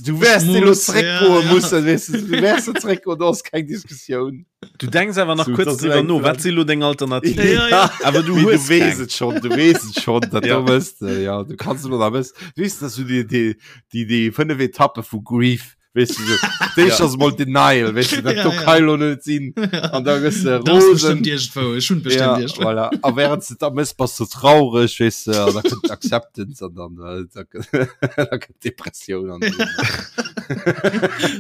B: du wäers
C: Ech
B: elo
C: muss,
B: zréckgoe
C: ja, ja.
B: mussen, weess de, du wäers zréckgoen, do ass keng Diskussioun.
A: Du denks awer nach
B: So,
A: kurz
B: das
A: drüber
B: eng
A: no, wat si lo deng Alternativ?
C: Ja, ja.
A: Awer du
B: Mee
A: hues
B: du wees
A: keng.
B: et schon, du wees et schon, dat
A: Ja.
B: du wësst, äh, ja, du kannst lo da wëss, du wees, dass du die, die, die, die fënnef Etappe vu Grief, wees du so, déi
A: Ja.
B: ass mol Denial, wees du, dat
C: Ja,
B: do
C: ja.
B: kann lo net sinn, an da gëss de
C: Das
B: rosen.
C: bestimmt irgendwo. Ich schon bestimmt
B: Ja,
C: irgendwo.
B: voilà. A während du da mëss, bass du traurig, wees du, an da kënnt Acceptance an dann, äh, da, da kënnt Depressioun an.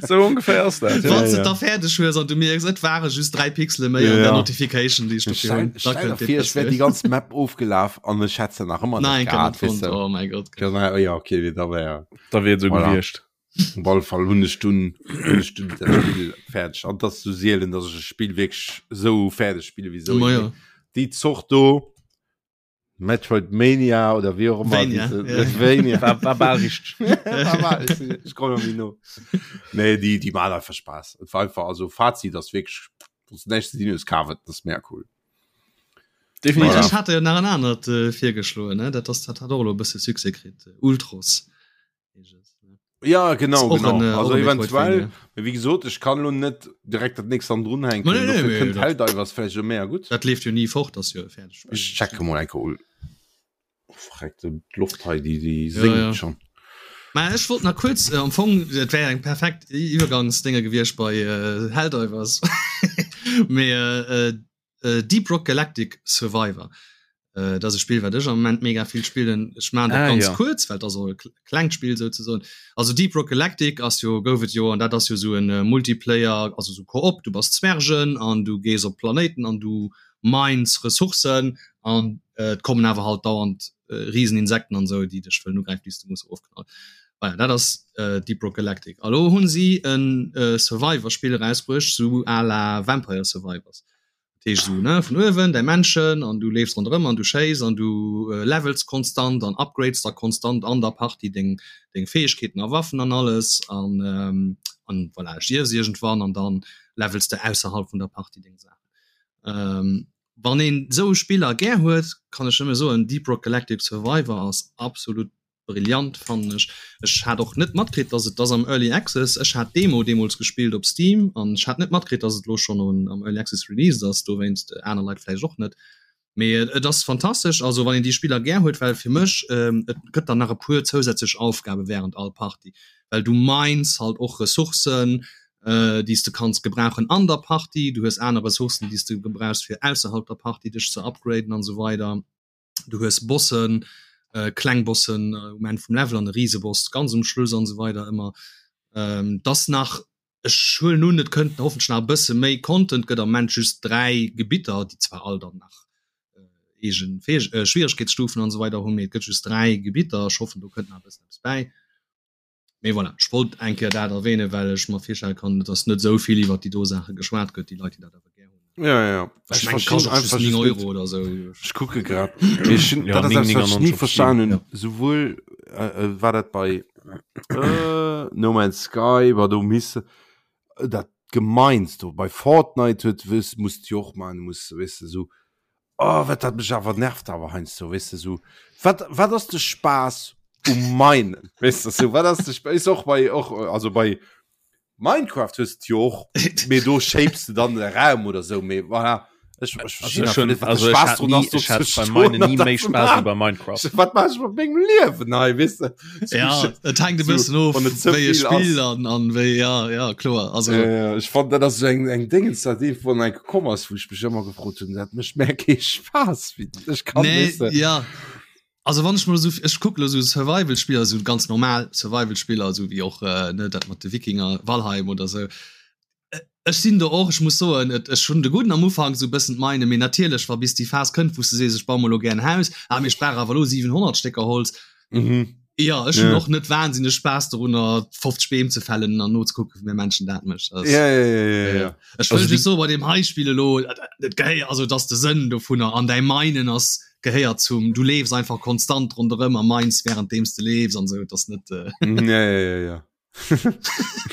A: So ongeféier ass dat.
C: Wann
A: Ja.
C: du
B: ja.
C: da fäerdeg hues an du mierks, et ware just 3 Pixele méi an
B: Ja.
C: der Notification, déi ech dofir
B: Stell,
C: hunn, da
B: stell dir
C: kënnt
B: vir, ech wär déi
C: Depressioun.
B: ganz Map ofgelaf an ech hätt se nach ëmmer net
C: Nein,
B: gehat,
C: net
B: weess
C: fonnt.
B: du.
C: Oh mein Gott.
B: Genau, ja, okay, da wär
A: Da wier et sou
B: Voilà.
A: gewiescht.
B: Op alle Fall hunn ech dunn hunn ech dunn dat Spill fäerdeg. An dat ass sou sielen, datt ech e Spill wierklech sou fäerdeg spille wéi sou
C: Ma
B: een.
C: ja.
B: Déi Zort do. Metroid Mania oder wéi och ëmmer
C: Vania,
B: diese-
C: ja.
B: Vania.
A: War, war bal richteg.
B: War bal, ich, ich komm noch nie no. Nee, die, die machen einfach Spaß. Et war einfach, also Fazit, das wirklich, das nächste Ding ist Carve, das ist mehr cool.
A: Definitiv.
B: Voilà.
C: Ech hat jo nach en anert äh, virgeschloen, ne? Dat ass dat hat och elo e bësse Succès kritt. Ultros.
B: Ja genau,
C: och
B: genau.
C: en, äh,
B: also
C: och en
B: eventuell
C: Metroidvania.
B: wie gesot ich kann lo net direkt dat nächst an drun hänken
C: Nee, nee,
B: Dofir
C: nee,
B: kënnt
C: dat-
B: Helldivers vläicht jo méi gutt
C: Dat leeft jo ni fort, ass jo e fäerdegt Spill.
B: Ech checke mol enke ul oh, verreckt d'Loft hei déi déi
C: Ja,
B: séngt
C: ja.
B: schon
C: Mä ech wollt nach kuerz äh, am Fong et wär eng perfekt Iwwergangsdénge gewiescht bei äh, Helldivers. Mee äh, äh, Deep Rock Galactic Survivor. Äh, dat ass e Spill, wat ech am Moment mega vill spillen. Ech maachen dat
A: Ah,
C: ganz
A: ja.
C: kuerz, well dat ass och e klengt Spill souzesoen. Also Deep Rock Galactic ass jo, gouf et jo, an dat ass jo sou en äh, Multiplayer, also sou Koop, du bass Zwergen an du gees op Planéiten an du mines Ressourcen an äh, et kommen awer halt dauernd äh, Rieseninsekten an sou, déi dech wëllen ugräifen, déi s du muss ofknallen. Voilà, dat ass äh, Deep Rock Galactic. A lo hunn si en äh, Survivor-Spill erausbruecht, sou à la Vampire Survivors. Dat heescht esou, ne, vun uewen däi Männchen an du leefs ronderëm an du schéiss an du levels konstant an upgrades da konstant an der Partie deng deng Fäegkeeten a Waffen an alles an an voilà, stierfs iergendwann an dann levels de ausserhalb vun der Partie deng Saachen. Wann een esou Spiller gär huet, kann ech nëmme soen, Deep Rock Galactic Survivor ass absolut Brillant fannen ech. Ech hat och net matkritt dass et ass am Early Access. Ech hat d'Demo deemols gespillt op Steam an ech hat net matkritt dass et lo schonn am Early Access released ass, dowéinst aner Leit vläicht och net. Mee et ass fantastesch, also wann een déi Spiller gär huet, well fir mech et gëtt dann nach e puer zousätzlech Aufgabe während all Partie, well du mines halt och Ressourcen déi s de kanns gebrauchen an der Partie, du hues aner Ressourcen déi s de gebrauchs fir ausserhalb der Partie dech ze upgraden an esou weider. du hues Bossen, äh, kleng Bossen äh, um Enn vum Level an e Rieseboss ganz um Schluss an so weider ëmmer. Ähm, das nach ech huelen un, et kënnt hoffentlich nach e bësse méi Content, gëtt am Moment just 3 Gebitter, déi zwar all dann nach äh, eegen Fäeg äh, Schwieregkeetsstufen an so weider hunn, mee et gëtt just 3 Gebitter. Ech hoffen, do kënnt nach e bëssen eppes bäi. Mee voilà, ech wollt eng Kéier dat erwähnen, well ech mer virstelle kann, dass net esou vill iwwert déi do Saache geschwat gëtt, déi Leit, déi dat awer gär hunn.
B: Ja, ja.
C: Ech mengen, kascht och just 9 Euro oder esou.
B: Ech kucke grad. Mee ech hunn,
A: Ja,
B: dat ass eppes, wat ech
A: 9,99
B: ni
A: op
B: verstan
A: Steam.
B: hunn. Souwuel äh, äh, war dat bei äh, No Man's Sky, war do misse dat gemeinst do. Bei Fortnite huet wis musst du jo och man, muss weess de sou Oh, wat dat mech awer nervt awer heiansdo, weess de, sou, wat, wat ass de Spaass um Minen, weess de, sou, wat ass de Spaass, is och bei, och, also bei Minecraft hues de jo och, mee do shapes de dann de Raum oder sou, mee voilà, ech, ech verstinn
A: Also
B: einfach net, wat de
A: also ech
B: Spaass
A: hat
B: drun
A: nie,
B: ass, do
A: ech hat
B: ze
A: bei
B: stoen
A: Minen
B: an
A: nie
B: dat
A: méi
B: ze
A: Spaass wéi
B: maachen.
A: bei Minecraft.
B: Wat maach ech mat mengem Liewen hei, weess de?
C: Ja, et hänkt e
B: So,
C: bëssen of,
B: wann et ze
C: wéi e
B: vill
C: Spill
B: ass.
C: an, an wéi, ja, ja, kloer. Also,
B: Ja, ja, ech fand dat ass so eng eng Dingens dat ee vun eng gekomm ass, wou ech mech ëmmer gefrot hunn, dat mécht mär kee Spaass wéi ech kann
C: nee,
B: weess de.
C: ja. Also wann ech mol esou, ech kucke lo esou Survival-Spiller, esou ganz normal Survival-Spiller, esou wéi och äh, ne, dat mat de Wikinger, Valheim oder esou. Ech sinn do och, ech muss soen, et ech hunn de gudden am Ufank esou e bëssen d'Meine, mee natierlech wa bis déi Phas kënnt, wou s de sees, ech baue mer elo gär en Haus, ah mee ech brauch awer elo 700 Stécker Holz.
B: Mhm.
C: Jo, ech hunn
B: Ja.
C: och net wahnsinneg Spaass dorunner 50 Beem ze fällen an nozekucken, wéi mäi Männchen dat mécht. Dat ass-
B: Ja, ja, ja, ja, ja.
C: Ech
A: Also
C: wëll
A: déi-
C: just soen, bei deem hei Spill elo, dat gehéiert, also et ass de Sënn dovunner an däi Meinen ass, gehéiert zum, du leefs einfach konstant ronderëm a mines wärenddeem s de leefs an esou, et ass net, äh,
B: Mhm, Ja, ja, ja, ja.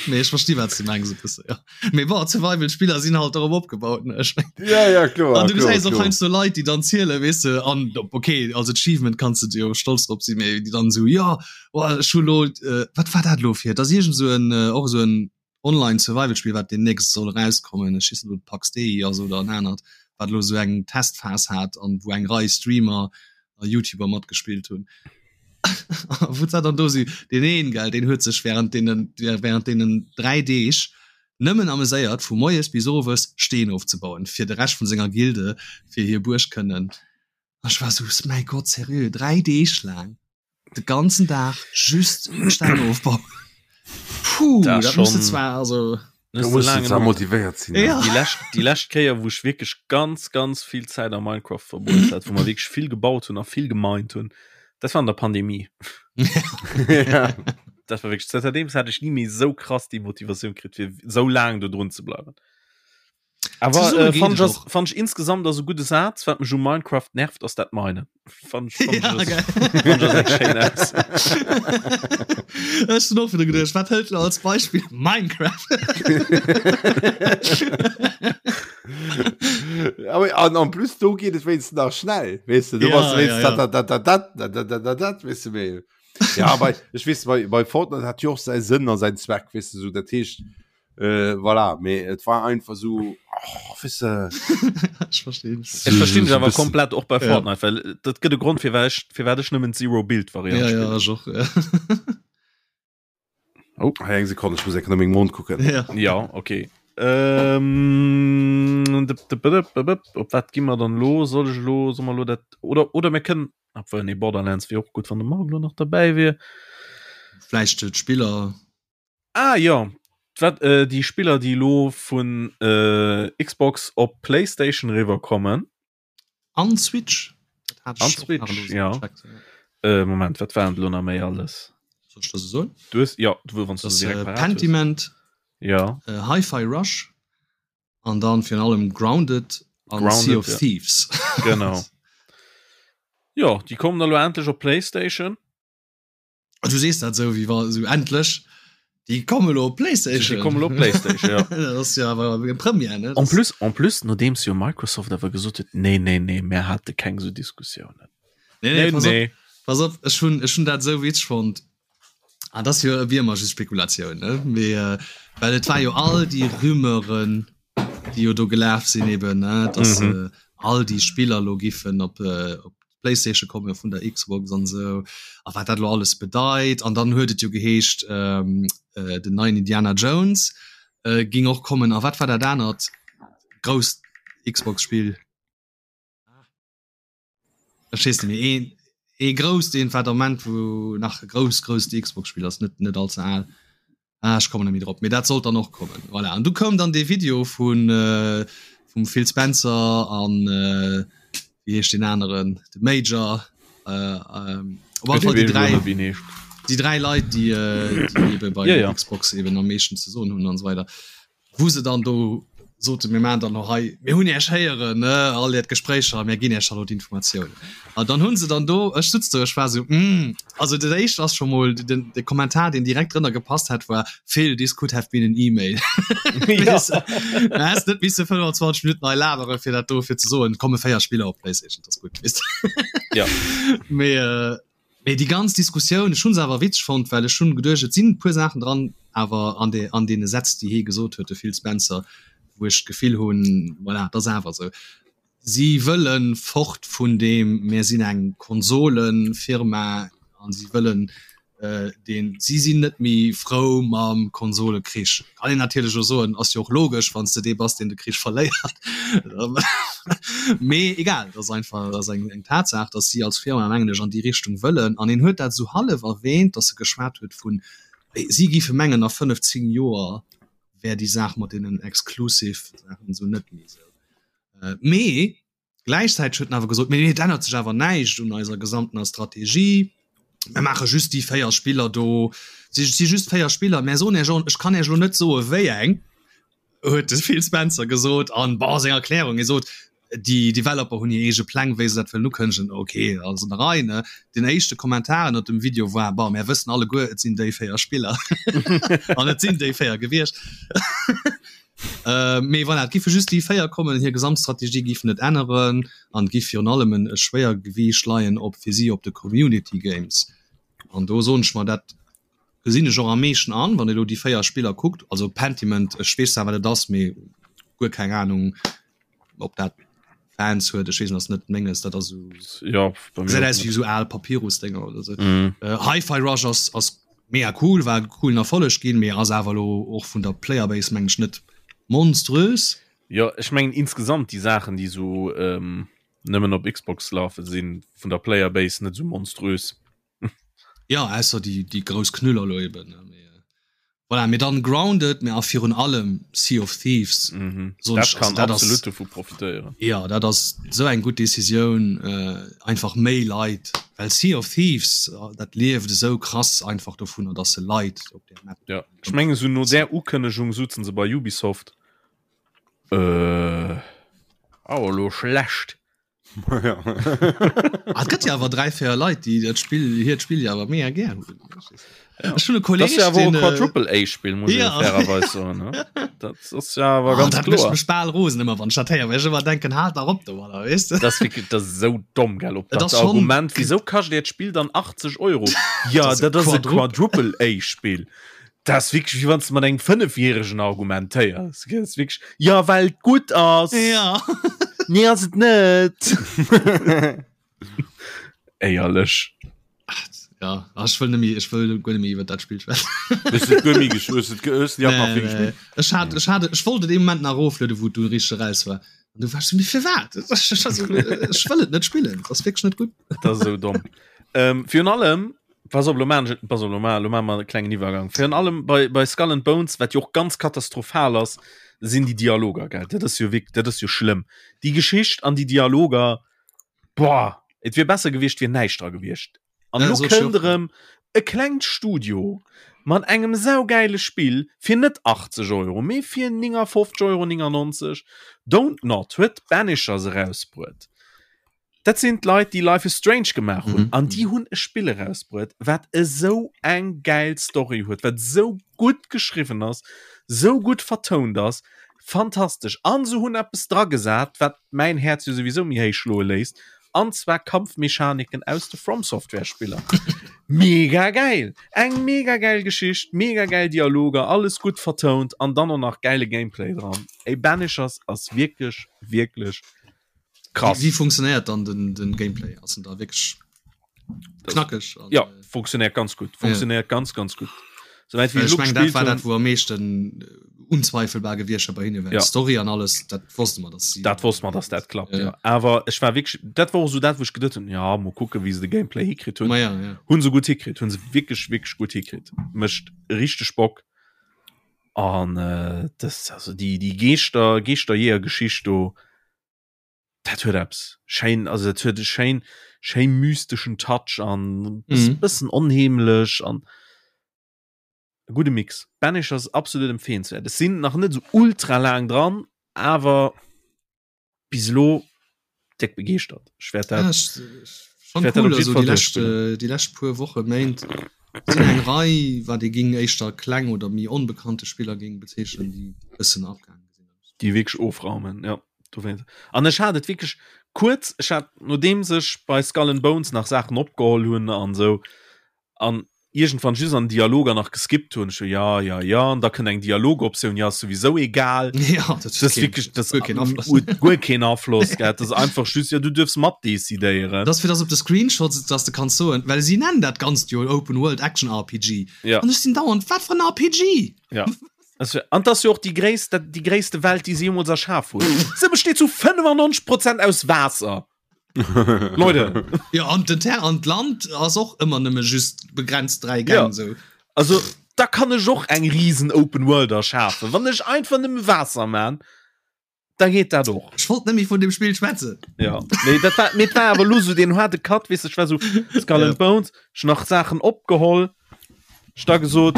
C: Nee, ech versti wat du mengs e bësse, ja. Mee bon, Survival-Spiller sinn halt dorop opgebaut, ne? Ech meng.
B: Ja, ja, kloer.
C: An du
B: kloer,
C: gesäis och
B: kloer.
C: heiansdo Leit, déi dann zielen, weess de, an okay, als Achievement kanns de jo stolz drop sinn, mee déi dann esou, jo, oh, ech hu lo, äh, wat war dat lo fir? Et ass iergend esou en, äh, och esou en Online-Survival-Spill, wat deemnächst soll erauskommen, ech weess net, ob et Pax Dei ass oder en anert, wat elo esou eng Testphas hat an wou eng Rei Streamer a YouTuber matgespillt hunn. Wou dat dann do si deen een gell, deen huet sech während deenen während deenen 3 Deeg nëmmen ameséiert vu moies bis owes Steen ofzebauen fir de Rescht vun senger Gilde fir hir Buerg kënnen. Ech war sou mäi Gott seriö 3 Deeg laang de ganzen Dag just Steng ofbauen. Puh,
A: Dat
C: dat muss
A: schon-
C: zwar also
B: Du musst zwar motivéiert sinn.
C: Ja.
A: Déi lescht, déi lescht Kéier, wou ech wierklech ganz, ganz vill Zäit a Minecraft verbruecht hat, wou mer wierklech vill gebaut hunn a vill gemined hunn, dat war an der Pandemie.
B: ja.
A: Dat war wierklech, zanterdeems hat ech ni méi esou krass déi Motivatioun kritt, fir esou laang do drun ze bleiwen. Awer äh, fand ich, fand ich insgesamt ass e gudde Saz, wat mech u Minecraft nervt, ass dat Minen. Fand ich, fand ja, ich,
C: fand ich Ech hun och wieder geduecht, wat hëlt als Beispiel Minecraft?
B: Aber an en plus do geht es wenigstens nach schnell weißt du, du ja, warst ja, ja. Dat, dat, dat, dat, dat, dat, dat, dat, weißt du, mehr. ja aber ich weiß bei, bei Fortnite hat jo och säi Sënn a säin Zweck weißt du, so dat heescht äh, voilà mee et war einfach so oh, weißt du,
C: Ech verstinn.
A: Ech verstinn dech awer komplett och bei Fortnite, ja. well dat gëtt e Grond fir wat ech fir wat ech nëmmen Zero Build Variant
C: ja, ja, ech och, ja.
B: Oh, hei eng Sekonn, ech muss eng Kéier no mengem Mond kucken.
C: Ja,
A: ja okay. Ähm, op wat gi mer dann lo? Soll ech lo, soll mer lo dat oder oder mir kënnen Obwuel nee Borderlands wier och gutt wann de Marc lo nach derbäi wier.
C: Vläicht d'Spiller.
A: Ah jo, wat äh, déi Spiller déi lo vun äh, Xbox op Playstation riwwer kommen.
C: An Switch.
A: An Switch, ja. Äh, Moment, wat waren lo nach méi alles?
C: Soll ech der se soen?
A: Du hues, ja, du wann du
C: se direkt parat hues. Pentiment.
A: Ja.
C: Äh, Hi-Fi Rush. An dann virun allem Grounded an
A: Grounded,
C: Sea of
A: ja.
C: Thieves.
A: Genau. Jo, déi kommen elo endlech op PlayStation.
C: Du sees dat esou wéi wa sou endlech déi kommen elo op PlayStation.
A: Déi kommen elo op PlayStation, ja.
C: Dat ass jo awer eng Première, ne?
A: En plus, en plus, nodeems jo Microsoft awer gesot huet, nee, nee, nee, mär hate keng esou Diskussiounen.
C: Nee, nee, pass op, pass op, ech hunn, ech hunn dat esou witzeg fonnt. Ah, das jo wie immer just Spekulation ne? Mee, äh, well et war jo all déi Rumeuren, déi jo do gelaf sinn eben ne? dass mhm. äh, all déi Spiller lo giffen op, äh, op PlayStation kommen vun der Xbox an sou a wat dat lo alles bedeit an dann huet et jo geheescht ähm, äh, den neien Indiana Jones äh, ging och kommen a wat war dat anert grousst Xbox Spiel? Ech weess net méi een ee grousst een war Ament wou nach e grouss grousst Xbox Spill ass net net all ze al ah, ech kommen net méi drop mee dat sollt dann och kommen voilà an du koum dann dee Video vun äh, vum Phil Spencer an äh, wéi heescht deen aneren de Major äh, ähm, op alle Fall déi 3 déi 3 Leit déi äh, déi ebe bei ja, ja. Xbox eben am meeschten ze soen hunn an esou weider wou se dann do soten, mir maachen dann elo hei, mir hunn Iech héieren, ne, all Äert Gespréicher, a mir ginn Iech da lo d'Informatiounen. An dann hu se dann do, ech sutz do, ech war esou, Hm, also dat éischt ass scho mol, den, de Kommentar, deen direkt drënner gepasst hätt, war, Phil, this could have been an email. Weess de, du häss net misse 25 Minutten hei labere fir dat do fir ze soen, et komme 4 Spiller op PlayStation, dat ass gutt, weess de.
A: Ja.
C: Mee, Mee déi ganz Diskussioun, ech hu se awer witzeg fonnt, well ech hunn geduecht, et sinn e puer Saachen dran, awer an de an deene Sätz, déi hie gesot huet, de Phil Spencer, wou ech d'Gefill hunn, voilà, et ass awer esou, si wëlle fort vun deem mir sinn eng Konsolenfirma a si wëllen deen, si sinn net méi frou mam Konsolekrich. Kann een natierlech och soen, ass jo och logesch, wann s de dee bass, deen de Krich verléiert. Mee egal, et ass einfach, et ass eng eng Tatsaach, datt si als Firma, mengen ech, an déi Richtung wëllen. An en huet dat esou hallef erwähnt, datt e geschwat huet vun, si géife mengen, a 5, 10 Joer wär déi Saach mat deenen Exclusive-Saachen esou net méi esou. Mee Gläichzäiteg huet en awer gesot, mee et ännert sech awer näischt un eiser gesamtener Strategie. Mir maache just déi 4 Spiller do. Si si just 4 Spiller. Mär soen Iech och, ech kann Iech elo net soe wéi eng, huet de Phil Spencer gesot. An, bon, seng Erklärung, hie sot, déi Developer hunn hir eege Pläng, wéi se dat wëllen ukënnegen. Ok, ass an der Rei, ne? Den éischte Kommentar ënnert dem Video war, bon, mär wëssen alleguer, et sinn déi 4 Spiller. An et sinn déi 4 gewiescht. Äh, mee voilà, et giffe just déi 4 kommen, hir Gesamtstrategie giff net änneren an et giff virun allem en e Schwéiergewiicht leien op fir si op de Community Games. An do soen ech mer, dat gesinn ech och am meeschten an, wann ee lo déi 4 Spiller kuckt, also Pentiment, ech weess zwar wat et ass, mee guer keng Ahnung ob dat Fans huet, ech weess net, ass net menges, dat ass esou
A: Ja,
C: bei mir gesäit aus wéi esou al Papyrus-Dénger oder sou. Mhm. Äh, Hi-Fi Rush ass ass mega cool, war e coolen Erfolleg ginn, mee ass awer elo och vun der Playerbase meng ech net monströs.
A: Jo, ech mengen insgesamt déi Saachen, déi sou ähm, nëmmen op Xbox lafen, sinn vun der Playerbase net sou monströs.
C: Ja, ausser déi déi grouss Knüller elo eben, ne, mee voilà, mee dann Grounded, mee a virun allem Sea of Thieves,
A: Mhm.
C: soen
A: Dat
C: ech,
A: kann
C: also dat ass
A: absolut dovu profitéieren.
C: Ja, dat ass esou eng gutt Decisioun, einfach méi Leit, well Sea of Thieves, dat lieft esou krass einfach dovunner, dass se Leit op där
A: Map. Ja, ech mengen esou no där Ukënnegung sutzen se bei Ubisoft. Äh, oh, lo schlecht.
C: Ah, et gëtt jo awer 3, 4 Leit, déi dat Spill, hiert Spill jo awer mega gär hunn.
A: Ja. Ech hunn e Kolleg, Das ist ja wohl den, äh, Quadruple A-Spiel, muss ja. ich fairerweise sagen. Ne? Das ist ja aber oh, ganz
C: dat
A: klar.
C: Mech bal rosen ëmmer, wann ech dat héier, well ech ëmmer denken, halt dach op domadder, weess
A: de? Das ist wirklich, das ist so dumm, gell? Ob das, das Argument, wieso kascht dir das Spiel dann 80 Euro? Ja, das, das ist ein Quadruple A-Spiel. Das ist wirklich, wie wann du mat engem Fënnefjähregen argumentéiers. Das ist wirklich, ja, well et gutt ass.
C: Ja.
A: Nee, ass et net. Éierlech.
C: Ja, ach, ech wëll net méi, ech wëll guer net méi iwwer dat Spill schwätzen.
B: Hues du et guer méi gesch-, hues du et ge-, hues du déi app nach vill
C: gespillt? Ech hat, ech hat, ech wollt et ee Moment nach eroflueden, wou et du richteg eraus war. An du war ech so, mee firwat? Ech wëll et net spillen, et ass wierklech net gutt.
A: Dat ass esou domm. Ähm, virun allem, Pass op, lo maan ech, pass op, lo maan, lo maan mer e klengen Iwwergang. Virun allem bei, bei Skull and Bones, wat jo och ganz katastrophal ass, sinn déi Dialoger, gell? Dat ass jo wierk, dat ass jo schlëmm. Déi Geschicht an déi Dialoger, boah, et wier besser gewiescht, wier näischt dra gewiescht. An
C: Ja,
A: lo
C: sot ech
A: kënnt
C: och.
A: erëm e klengt Studio mat engem saugeile Spill fir net 80 Euro, mee fir 59,99 Euro. Don't Nod huet Banishers erausbruet. Dat sinn d'Leit, déi Life is Strange gemaach hunn. Mhm. An déi hunn e Spill erausbruet, wat esou eng gäil Story huet, wat esou gutt geschriwwen ass, esou gutt vertount ass. Fantastesch. An se hunn eppes dragesat, wat mäin Häerz jo souwisou méi héich schloe léisst, an zwar Kampfmechaniken aus de From Software Spiller. Mega gäil! Eng mega gäil Geschicht, mega gäil Dialoger, alles gutt vertount an dann och nach gäile Gameplay dran. Ey, Banishers ass wierklech, wierklech
C: Krass. Wie, wie funktionéiert dann den, den Gameplay? Ass en da wierklech knackeg?
A: An, ja, äh, funktionéiert ganz gut. Funktionéiert ja. ganz, ganz gut.
C: Soweit wie ich mein, dat war dat, wou am meeschten äh, unzweifelbar gewiescht bei hinne ja. Story an alles dat wosste man
A: dass dat wosste man dass dat klappt ja. Ja. awer ech war wirklich dat war so dat wo ich gedacht hun ja mo gucke wie se de Gameplay hikritt hun
C: ja, ja.
A: hun so gut hikritt hun se wirklich wirklich gut hikritt mecht richtig Bock An äh, das, also die, die Geeschter, Geeschterjeeër-Geschicht do, dat huet eppes. Schéin, also dat huet e schéin, schéin mysteschen Touch an mhm. bëssen onheemlech an e gudde Mix. Banishers absolut empfehlenswert. Es sinn nach net so ultra laang dran, awer bis elo déck begeeschtert. Ech wäert dat,
C: ja, ech, schon wäert cool, also déi lescht, äh, déi lescht puer Woche Méint sinn eng Rei wat ee ging éischter kleng oder méi onbekannte Spiller ging bezeechnen, déi bëssen abgaange
A: sinn. Déi wierklech ofraumen, ja. Dowéinst. An ech hat et wierklech kuerz, ech hat nodeems ech bei Skull and Bones nach Saachen opgeholl hunn an esou, an iergendwann just an Dialoger nach geskippt hunn, ech so ja ja ja an da kënnt eng Dialogoptioun, ja ass souwisou egal.
C: Ja, dat
A: Das ist wirklich das guer keen Afloss. huet guer keen Afloss gell, das ist einfach just ja du duerfs mat decidéieren.
C: Das fir dass op de Screenshots dass de kanns soen, well si nennen dat Ganzt jo Open World Action RPG.
A: Ja.
C: An ech sinn dauernd, wat fir en RPG?
A: Ja. Das wär, an das jo och déi gréisst, dat déi gréisste Welt, déi se jeemools erschaf hunn. Se besteet zu 95 Prozent aus Waasser. Leute.
C: Ja, an den Ter an d'Land ass och ëmmer nëmme just begrenzt 3 Gäng
A: ja.
C: sou.
A: Also da kann ech och eng riesen Open World erschafen. Wann ech einfach nëmme Waasser man, da geet dat och.
C: Ech wollt net méi vun dem Spill schwätzen.
A: Ja. Nee, dat war, mee war awer lo sou den harde Cut, weess de, ech war sou Skull and Bones, ech nach Saachen opgeholl. Ech da gesot,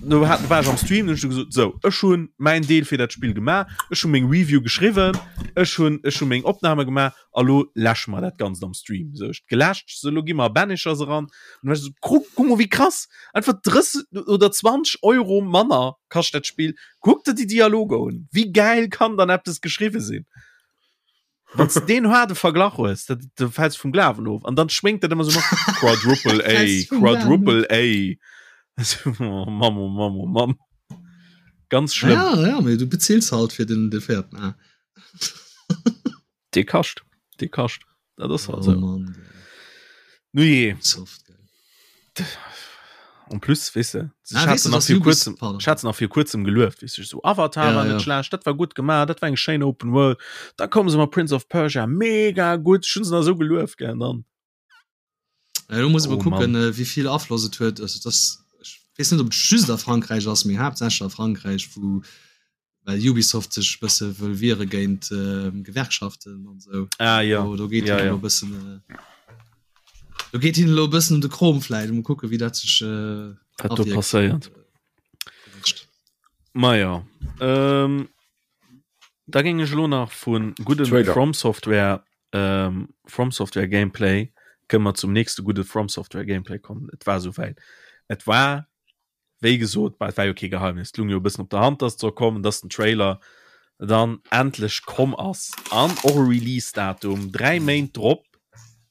A: no hat war ech am Stream, hunn ech gesot, sou, ech hunn mäin Deel fir dat Spill gemaach, ech hu meng Review geschriwwen, ech hunn ech hu meng Opname gemaach a lo läsche mer dat Ganzt am Stream. Sou, ech geläscht, sou lo gi mer a Banishers eran. An du war ech sou, kuck, kuck mol wéi krass, einfach 30 oder 20 Euro manner kascht dat Spill. Kuck der déi Dialoger un, wéi gäil kann dann eppes geschriwwe sinn? Wann du den harde Verglach hues, da, da fällst du vum Glawen of. An dann schwingt dat immer so mat Quadruple A, Quadruple A. Oh, Mann, oh Mann, oh Mann. Ganz schlimm.
C: Ja, ja, mee du beziels halt fir den, de véierten A.
A: Dee kascht, dee kascht. Dat ass halt oh,
C: so. Mann,
A: Nu je.
C: Soft,
A: En plus, weess de,
C: ah,
A: ich hatte nach
C: vir
A: kurzem, ich hatte nach vir kurzem gelueft, weess du, so Avatar ja, war net ja. schlecht, dat war gut gemacht, dat war eng schéin Open World. Da kommen se mat Prince of Persia, mega gut, schon se so gelueft gell dann.
C: Ja, du muss oh, kucken, äh, wie viel Afloss et huet. Also, das, ich weess net, ob et just a Frankräich ass, mee haaptsächlech a Frankräich, wou well Ubisoft sech bësse wëll wiere géint äh, Gewerkschaften an sou.
A: Ah, ja.
C: Do, do geet
A: ja,
C: ja.
A: ja.
C: bëssen äh, do geet hin lo bëssen um de Krom vläit, um kucke wéi dat sech äh,
A: Wat do passéiert. Ma ja. Ähm. Da géing ech elo nach vu gudde From Software ähm, From Software Gameplay kënne mer zum nächste gudde From Software Gameplay kommen. Et war souwäit. Et war wéi gesot, bah, et war jo kee Geheimnis, et lung jo e bëssen op der Hand, dass et soll kommen, dass den Trailer dann endlech komm ass an och e Release-Datum 3 Méint drop,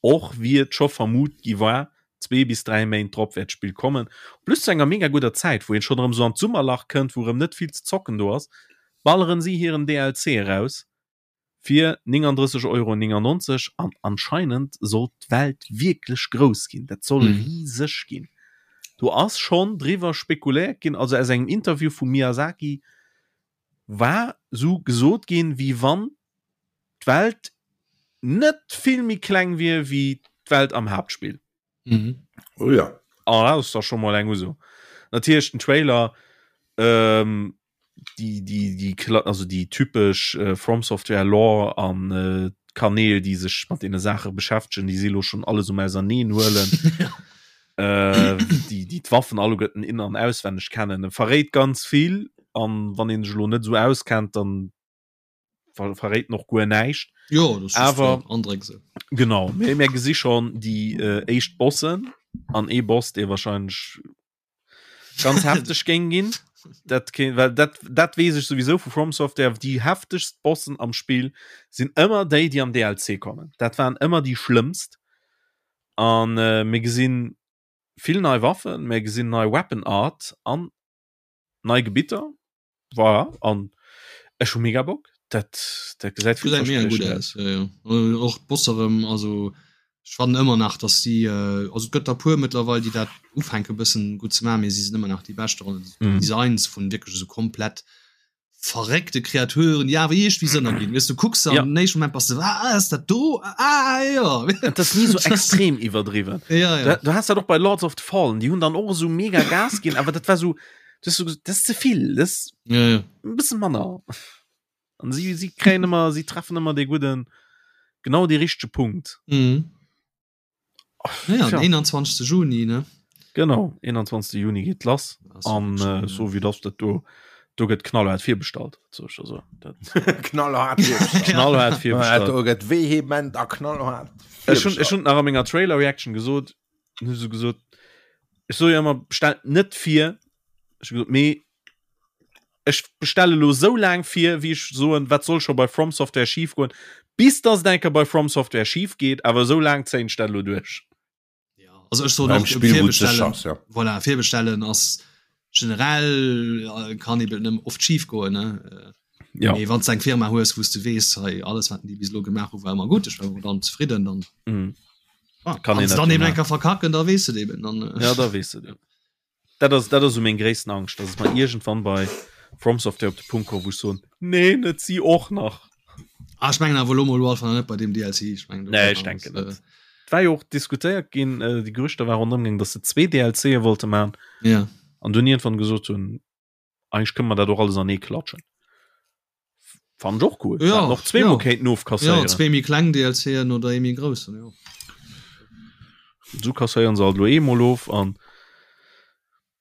A: och wéi et scho vermut gi war, 2 bis 3 Méint drop wäert d'Spill kommen. Plus zu enger mega gudder Zäit, wou een schonn erëm sou an d'Summerlach kënnt, wou erëm net vill ze zocken do ass, balleren si hiren DLC eraus fir 39,99 Euro an anscheinend soll d'Welt wierklech grouss ginn, dat soll riseg ginn. Do ass schonn driwwer spekuléiert ginn, also aus engem Interview vum Miyazaki war sou gesot ginn, wéi wann d'Welt net vill méi kleng wier wéi d'Welt am Haaptspill.
B: Mhm. Oh ja.
A: Ah, dat ass da scho mol eng Uso. Natierlech den Trailer, ähm, déi, déi, déi, also déi typesch äh, From Software Lore an äh, Kanäl, déi sech mat deene Saache beschäftegen, déi si lo schon alles um auserneen huelen. äh, déi, déi d'Waffen alleguerten in an auswenneg kennen. E verréit ganz vill an wann een sech lo net sou auskennt, dann ver verréit noch guer näischt.
C: Jo, das
A: awer
C: Andréck se.
A: Genau mir, mir gesi schon déi äh, éischt Bossen an ee Boss, dee wahrscheinlech ganz hefteg géing ginn. Dat ke well dat, dat weess ech souwisou vu From Software, déi heftegst Bossen am Spill sinn ëmmer déi, déi am DLC kommen. Dat waren ëmmer déi schlëmmst. An äh, mir gesinn vill nei Waffen, mir gesinn nei Weapon Art an nei Gebitter. Voilà, an ech hu mega Bock. Dat, dat gesäit
C: Gesäit mega gutt aus, jo, jo. Och d'Boss erëm, also ech fannen ëmmer nach, dass si, also et gëtt der puer mëttlerweil, déi dat ufänke bëssen gutt ze maachen, mee si sinn ëmmer nach déi bescht dran. D'Designs vun wierklech esou komplett verréckte Kreaturen, déi awer iergendwéi Sënn erginn. Weess du kucks an am éischten Moment bass de, ah, ass dat do? Ah, jo.
A: Et ass ni esou extrem iwwerdriwwen.
C: Jo, jo.
A: Du has dat och bei Lords of the Fallen, déi hunn dann och esou mega Gas ginn, awer dat war esou, das, das ist ze vill das
C: ja, ja.
A: e bëssen manner an sie sie kréien ëmmer sie treffen ëmmer de gudden genau de richtege Punkt
C: mhm. ja, ja. 21. Juni ne
A: genau 21. Juni geht lass an äh, so wie das dat du do gëtt knallhart virbestallt so also
B: knallhart
A: knallhart
B: virbestallt vehement a knallhart
A: ech hun ech hun nach a menger Trailer Reaction gesot hu se gesot ech so jo ëmmer bestellt net vir ech gesot mee ech bestelle lo sou laang vir wéi ech soen wat soll scho bei From Software schief goen bis dass et eng Kéier bei From Software schief geet awer sou laang zéien ech dat lo duerch.
C: Ja, also ech soen och virbestellen, ja. Voilà, virbestellen ass generell äh, kann eben nëmmen oft schief goen ne äh,
A: ja.
C: Mee wann eng Firma hues wou du wees hei alles wat déi bis lo gemaach hu war ëmmer gutt ech war dann zefridden dann
A: mm.
C: ah, kann een dann eben enker verkacken da wees du eben dann
A: äh. ja da wees du dat ass dat ass so meng gréissten Angscht dass et mal irgendwann bei From Software op de Punkt kommt wou ech soen nee net si och nach
C: ah, ech mengen awer lo mol einfach net bei dem DLC ech mengen
A: nee ech denken net äh, war jo och diskutéiert ginn äh, déi Gerüchter war ronderëm gaangen dass se zwee DLCe wollte man
C: ja
A: an dunn iergendwann gesot hunn eigentlich kënne mer dat och alles anee klatschen. Fand och cool.
C: Ja,
A: noch zweemol
C: ja.
A: kéinten ofkasséieren.
C: Ja, zwee méi kleng DLCen oder ee méi groussen, jo.
A: So kasséieren se alt lo eemol of an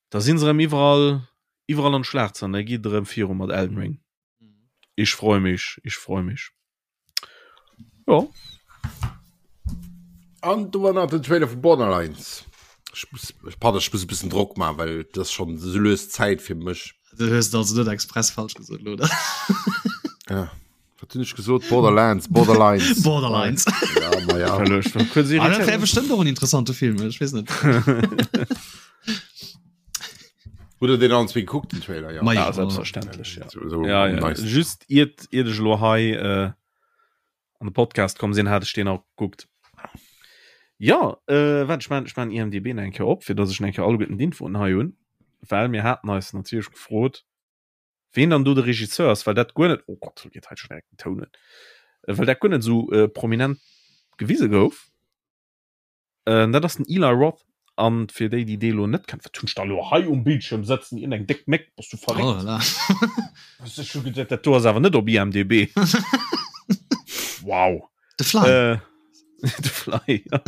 A: da sinn se erëm iwwerall iwwerall an d'Schlagzeilen. Da geet et erëm viru mat Elden Ring. Ich freu mich, ich freu mich. Ja.
B: An du war nach den Trailer vu Borderlands. Ich muss, ich, pardon, ich muss e bisschen Drock machen, weil das schon so löst Zeit fir mech.
C: Du hues also net express falsch gesot, oder?
B: Ja. Wat hunn ech gesot? Borderlands, Borderlines.
C: Borderlines.
B: Ja, ma ja.
C: Ah, dat wär bestimmt och en interessante Film, ech weess net.
B: Hutt der deen allen zwee gekuckt, den Trailer?
A: Ja, ja selbstverständlech. Ja. So, so ja, ja. Nice. Just iert, iert ech lo hei äh, an de Podcast komm sinn, hat ech deen auch gekuckt. Ja, äh, wat ech man, ech man IMDb eng Kéier op, fir dass ech eng Kéier alleguerten d'Infoen hei hunn, well mir haten eis natierlech gefrot, ween dann do de Regisseur ass, well dat guer net, oh Gott, do geet hei schon direkt den Toun un, äh, well dat guer net esou äh, prominent gewise gouf. Äh, dat ass den Eli Roth. An fir déi, déi dee lo net kennen, wat hunn ech da lo hei um Bildschirm sëtzen, iergend eng déck Méck, bass du verréckt?
C: Oh là là.
A: Ech hu geduet, dat do ass awer net op IMDb. Wow.
C: The Fly.
A: Äh, The Fly, ja.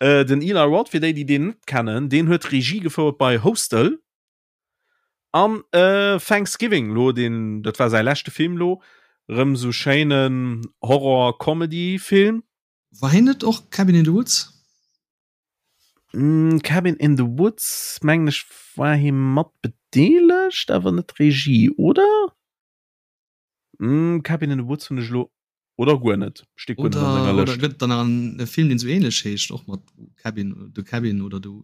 A: Äh, den Eli Roth, fir déi, déi deen net kennen, deen huet Regie gefouert bei Hostel an äh, Thanksgiving, lo den, dat war säi leschte Film lo. Rëm sou schéinen Horror-Comedy-Film.
C: War hien net och Cabin in the Woods?
A: Mm, Cabin in the Woods mengen ech war hie mat bedeelegt, awer net Regie, oder? Mm, Cabin in the Woods hunn ech elo oder guer net.
C: Steet guer net an senger Lëscht. Oder gëtt dann nach en Film, deen sou ähnlech heescht, och mat Cabin, The Cabin oder The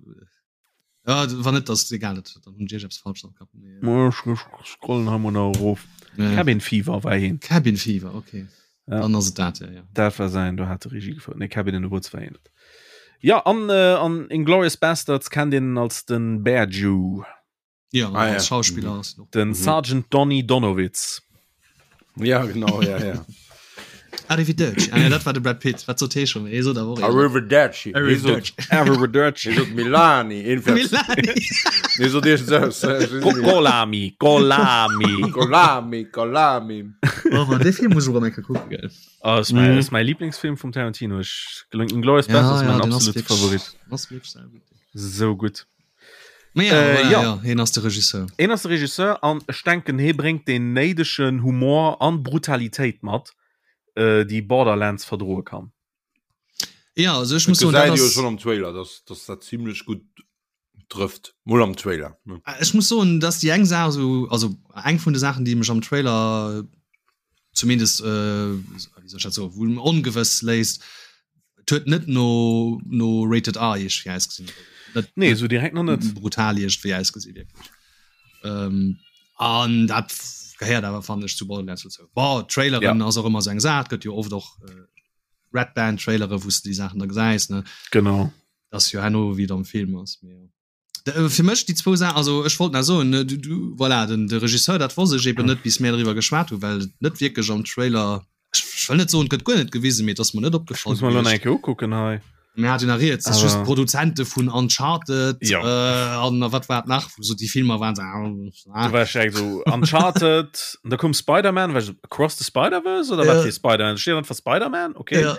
C: Ja, wann net, das egal, dat, dann hunn ech eppes falsch am Kapp.
A: Nee. Ech scrollen hei mol nach erof. Ja. Cabin Fever war hien.
C: Cabin Fever, okay. Ja. Dann ass et dat, ja, ja.
A: Dat war säin, do hat de Regie gefouert. Nee, Cabin in the Woods war hien net. Ja, an, äh, an Inglourious Basterds kennt een als den Bear Jew.
C: Ja, ah, ja. Schauspieler mhm.
A: ass noch. Den mhm. Sergeant Donny Donowitz.
B: Ja, genau, ja, ja.
C: Arrivederci. Ah, ja, dat war de Brad Pitt. Wat sot hee schon? Hee sot
B: awer och. Arrivederci.
A: Arrivederci. Arrivederci.
B: Hee sot Milani.
C: Milani.
B: Hee sot iergend
A: sou. Golami. Golami.
B: Golami, Golami.
C: Oh, man, dee Film muss ech och eng Kéier kucken, gell.
A: Oh, ist mein, mhm. ist mein Lieblingsfilm vum Tarantino. Ech, Inglourious Basterds ja, ja, mein absolute Favorit.
C: Ass wierklech sehr gutt.
A: So gutt.
C: Ja, äh, voilà, ja. ja, hien ass de Regisseur.
A: Hien ass de Regisseur an ech denken hie bréngt den néidegen Humor an Brutalitéit mat, äh, déi Borderlands verdroe kann.
C: Ja, also ech muss soen, dat
B: ass schon am Trailer, dass, dass dat ziemlech gutt trëfft. Mol am Trailer.
C: Ne? Äh, ech muss soen, dass déi eng Saach so, also eng vun de Saachen, déi mech am Trailer zumindest äh, wéi soll ech dat soen, wou ongewëss léisst, et huet net no no rated R iergendwéi ausgesinn.
A: Net, nee, sou direkt nach net.
C: Brutal iergendwéi ausgesinn, wierklech. Ähm, an dat gehéiert awer fannen ech zu Borderlands dozou. Bon, Traileren ja. ass och ëmmer sou eng Saach, gëtt jo oft och äh, Red Band Trailere, wou s de déi Saachen da gesäis, ne?
A: Genau.
C: Dat ass jo herno wéi et am Film ass, mee jo. Äh, fir mech déi zwou Saachen, also ech wollt nach soen, ne, du, du, voilà, den, de Regisseur, dat wosst ech eben net, bis mär driwwer geschwat hu, well et net wierklech am Trailer, ech, ech wëll net soen, et gëtt guer net gewisen, mee et ass mer net
A: Ech
C: opgefall
A: muss mer elo nach
C: gewiescht.
A: eng Kéier ukucken hei.
C: Mir hat jo nach rieds, dass just
A: Awer
C: d'Produzente vun Uncharted
A: Jo.
C: äh, an a wat war et nach, wou so déi Filmer waren, so,
A: ah, Du war ech direkt so Uncharted, an da koum Spider-Man, war ech so, Across the Spider-Verse oder wat
C: Ja.
A: fir Spider-Man? Da steet einfach Spider-Man, okay.
C: Ja.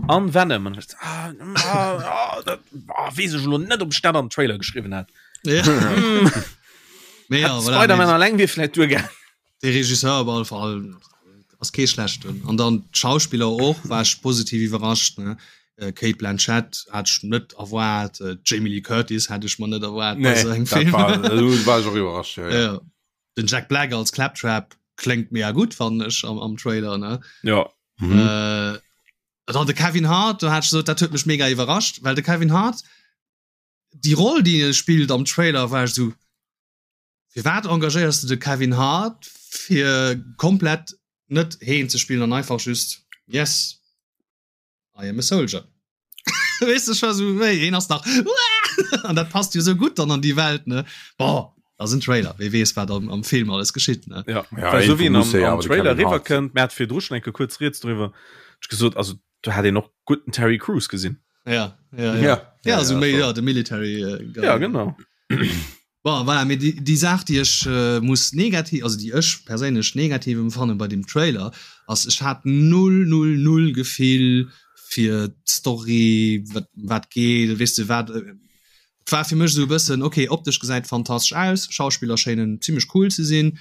A: An Venom. An ech, ah, ah, ah, dat, ah, weess ech elo net, ob ech dat an den Trailer geschriwwen hat.
C: Ja.
A: Mm.
C: Mee ja,
A: Hätt
C: voilà,
A: Spider-Man
C: mee
A: alleng wier vläit duergaangen.
C: De Regisseur op alle Fall ass kee schlechten. An dann d'Schauspiller och, war ech positiv iwwerrascht. Ne? Äh, Cate Blanchett hat ech net erwaart, äh, Jamie Lee Curtis hat ech mer net erwaart bei
B: Nee,
C: sou engem
B: dat
C: Film.
B: war, do war ech och iwwerrascht, ja, ja.
C: Ja. Den Jack Black als Claptrap kléngt mega gutt, fannen ech am, am Trailer. Ne?
A: Ja.
B: Mhm.
C: Äh, dann de Kevin Hart, do hat ech gesot, dat huet mech mega iwwerrascht, well de Kevin Hart, déi Roll, déi e spillt am Trailer, war ech sou, firwat engagéiers du de Kevin Hart fir komplett net heen ze spillen an einfach just yes I am a soldier. Weess de, ech war sou, wéi, heen ass nach an dat passt jo sou gutt dann an déi Welt, ne? Bon, ass en Trailer, wee weess, wat am, am Film alles geschitt, ne?
A: Ja,
B: Ja,
A: well sou wéi en
B: irgendwo muss
A: am,
B: e
A: am
B: awer de
A: Trailer
B: Kevin Hart
A: riwwerkënnt, mir hat virdru schon eng Kéier kuerz rieds driwwer, ech gesot, also do hat een och gutt den Terry Crews gesinn.
C: Ja, ja, ja.
B: Ja,
C: Ja,
B: ja,
C: also
B: ja,
C: méi,
B: schon.
C: ja, de Military äh, Guy.
A: Ja, genau.
C: Bon, voilà, mee déi, déi Saach, déi ech äh, muss negativ, also déi ech perséinlech negativ empfanne bei dem Trailer, ass, ech hat null, null, null Gefill fir d'Story, wat, wat geet, weess de, wat, äh, et war fir mech esou e bëssen, okay, optesch gesäit fantastesch aus, Schauspiller schéinen zimmlech cool ze sinn,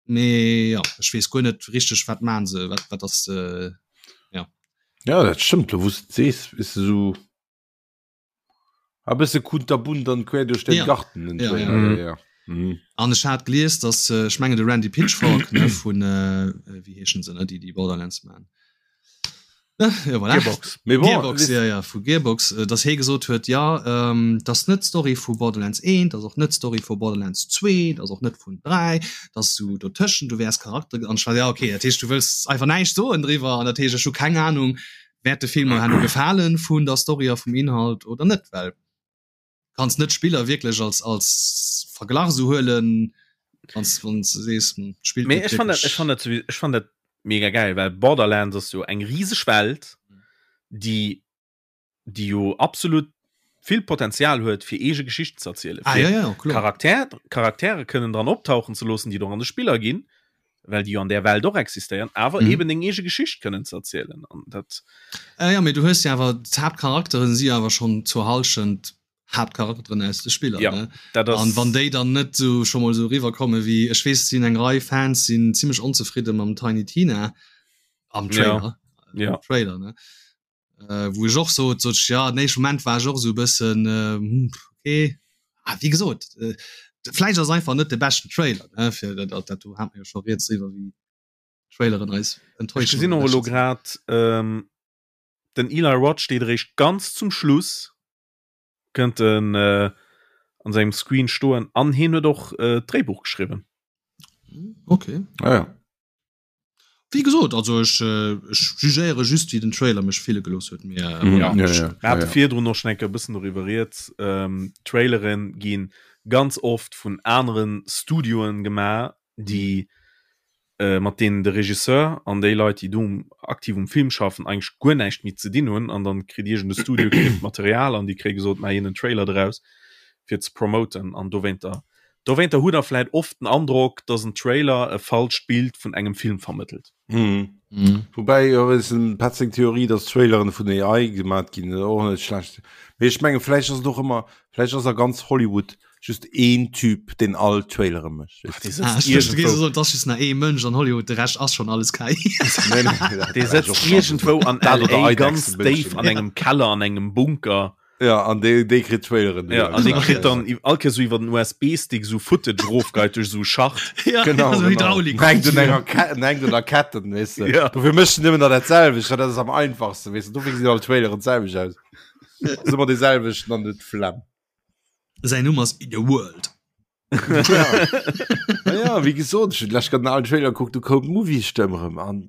C: mee ja, ech weess guer net richteg, wat maan se, wat, wat ass de, ja.
B: Ja, dat stëmmt, lo wou s de et sees, is de sou a bësse kunterbunt an quer duerch den
C: Ja.
B: Garten den
C: Ja,
B: Trailer,
A: ja.
B: ja, ja. Mhm.
C: An ech hat gelies, dass, ech mengen de Randy Pitchfork, ne, vun, wéi heeschen se, ne, déi déi Borderlands man. Ja, voilà.
A: Gearbox.
B: Mee bon,
C: Gearbox,
B: weess-
C: ja, ja, vu Gearbox, äh, dass hee gesot huet, ja, ähm, dat ass net d'Story vu Borderlands 1, dat ass och net d'Story vu Borderlands 2, dat ass och net vun 3, dat ass sou dotëschent, du wäers Charakter, an ech war, ja, okay, dat heescht, du wëlls einfach näischt soen driwwer, an dat heescht, ech hu keng Ahnung, wäert de Film mer herno gefalen vun der Story a vum Inhalt oder net, well kanns net d'Spiller wierklech als als Verglach sou huelen, wanns wanns de sees, hm, d'Spill
A: Mee
C: gëtt
A: ech fann dat, ech
C: wierklech
A: fann dat souwi, ech fann dat mega geil, well Borderlands ass jo eng riseg Welt, déi déi jo absolut vill Potenzial huet fir eege Geschichten ze erzielen,
C: Ah
A: fir
C: ja, ja, kloer.
A: Charakter, Charaktere kënnen dran optauchen ze loossen, déi et och an de Spiller ginn, well déi jo an där Welt och existéieren, awer
C: Mhm.
A: eben deng eege Geschicht kënnen ze erzielen an dat
C: Äh, ja, mee du hues jo awer d'Haaptcharakteren si awer schonn zur Hallschent. Haaptcharakteren aus de Spiller ja, ne? dat ass... An wann déi dann net so schon mal so riwer komme wie ech wees sinn eng Rei Fans sinn ziemlich onzefridde mam Tiny Tina am Trailer
A: ja. Ja.
C: Trailer ne äh, wo ech och so so ja den éischte Moment war ech och so bëssen äh, hm, okay ah, wie gesot äh, vläicht ass einfach net de beschten Trailer ne fir dat dat dat do hat mir jo scho rieds driwwer wéi Traileren eis
A: Ech
C: enttäuschen
A: gesinn
C: oder
A: och elo
C: beschten
A: grad ähm, den Eli Roth steet eréischt ganz zum Schluss kënnt en äh, an sengem Screen stoen an hien huet och äh, d'Dréibuch geschriwwen.
C: Okay.
B: Ah, ja.
C: Wéi gesot, also ech, ech jugéiere just wéi den Trailer mech fille gelooss huet. Mee,
A: ja.
B: Ja, ja, ja.
A: Mir hate virdrun och schon eng Kéier e bëssen doriwwer rieds. Ähm, Trailere gi ganz oft vun anere Studioen gemaach, déi äh, mat deenen de Regisseur an déi Leit, déi do aktiv um Film schaffen, eigentlech guer näischt méi ze dinn hunn. An dann kritt iergend e Studio kritt d'Material an déi kréie gesot, maach een en Trailer draus fir ze promoten. An dowéinter Dowéinter hutt der vläit oft den Androck, dass en Trailer e falscht Bild vun engem Film vermëttelt.
B: Mhm. Woubäi jo ass dem Petz seng Theorie, dass Traileren vun AI gemat ginn, och net schlecht. Mee ech menge vläicht ass et och ëmmer, vläicht ass a ganz Hollywood just een Typ, deen all Trailere mécht.
A: Ach, dee
C: Ah,
A: sëtzt
C: ech duecht, du géifs
A: iergendwou,
C: soen, et ass just nach ee Mënsch an Hollywood, de Rescht ass schonn alles KI.
B: Nee, nee, dat
A: dee
B: war ech
A: sëtzt
B: och schon.
A: iergendwou an
B: Dat oder
A: LA ganz
B: Eidechsen
A: déif
B: Mënschen.
A: an engem Keller, an engem Bunker.
B: Ja, an déi, déi kritt Traileren.
A: Ja, an dee kritt dann all Kéier sou iwwer den USB-Stick sou Footage rofgeit duerch sou Schacht.
C: Ja,
B: Genau,
C: so
B: genau.
C: Hydraulik.
B: Hängt un enger Ketten, hängt un der Ketten, weess de.
A: Ja.
B: Dofir mécht en nëmmen der dat selwecht, well dat ass am einfachsten, weess de. Dofir gesinn all Traileren d'selwecht aus. Ass ëmmer dee selwechten an huet d'Flemm.
C: Säin Numm ass In a World.
B: Ja, ja wéi gesot, ech hunn d'lescht grad en alen Trailer gekuckt, du koum d'Movie-Stëmm erëm an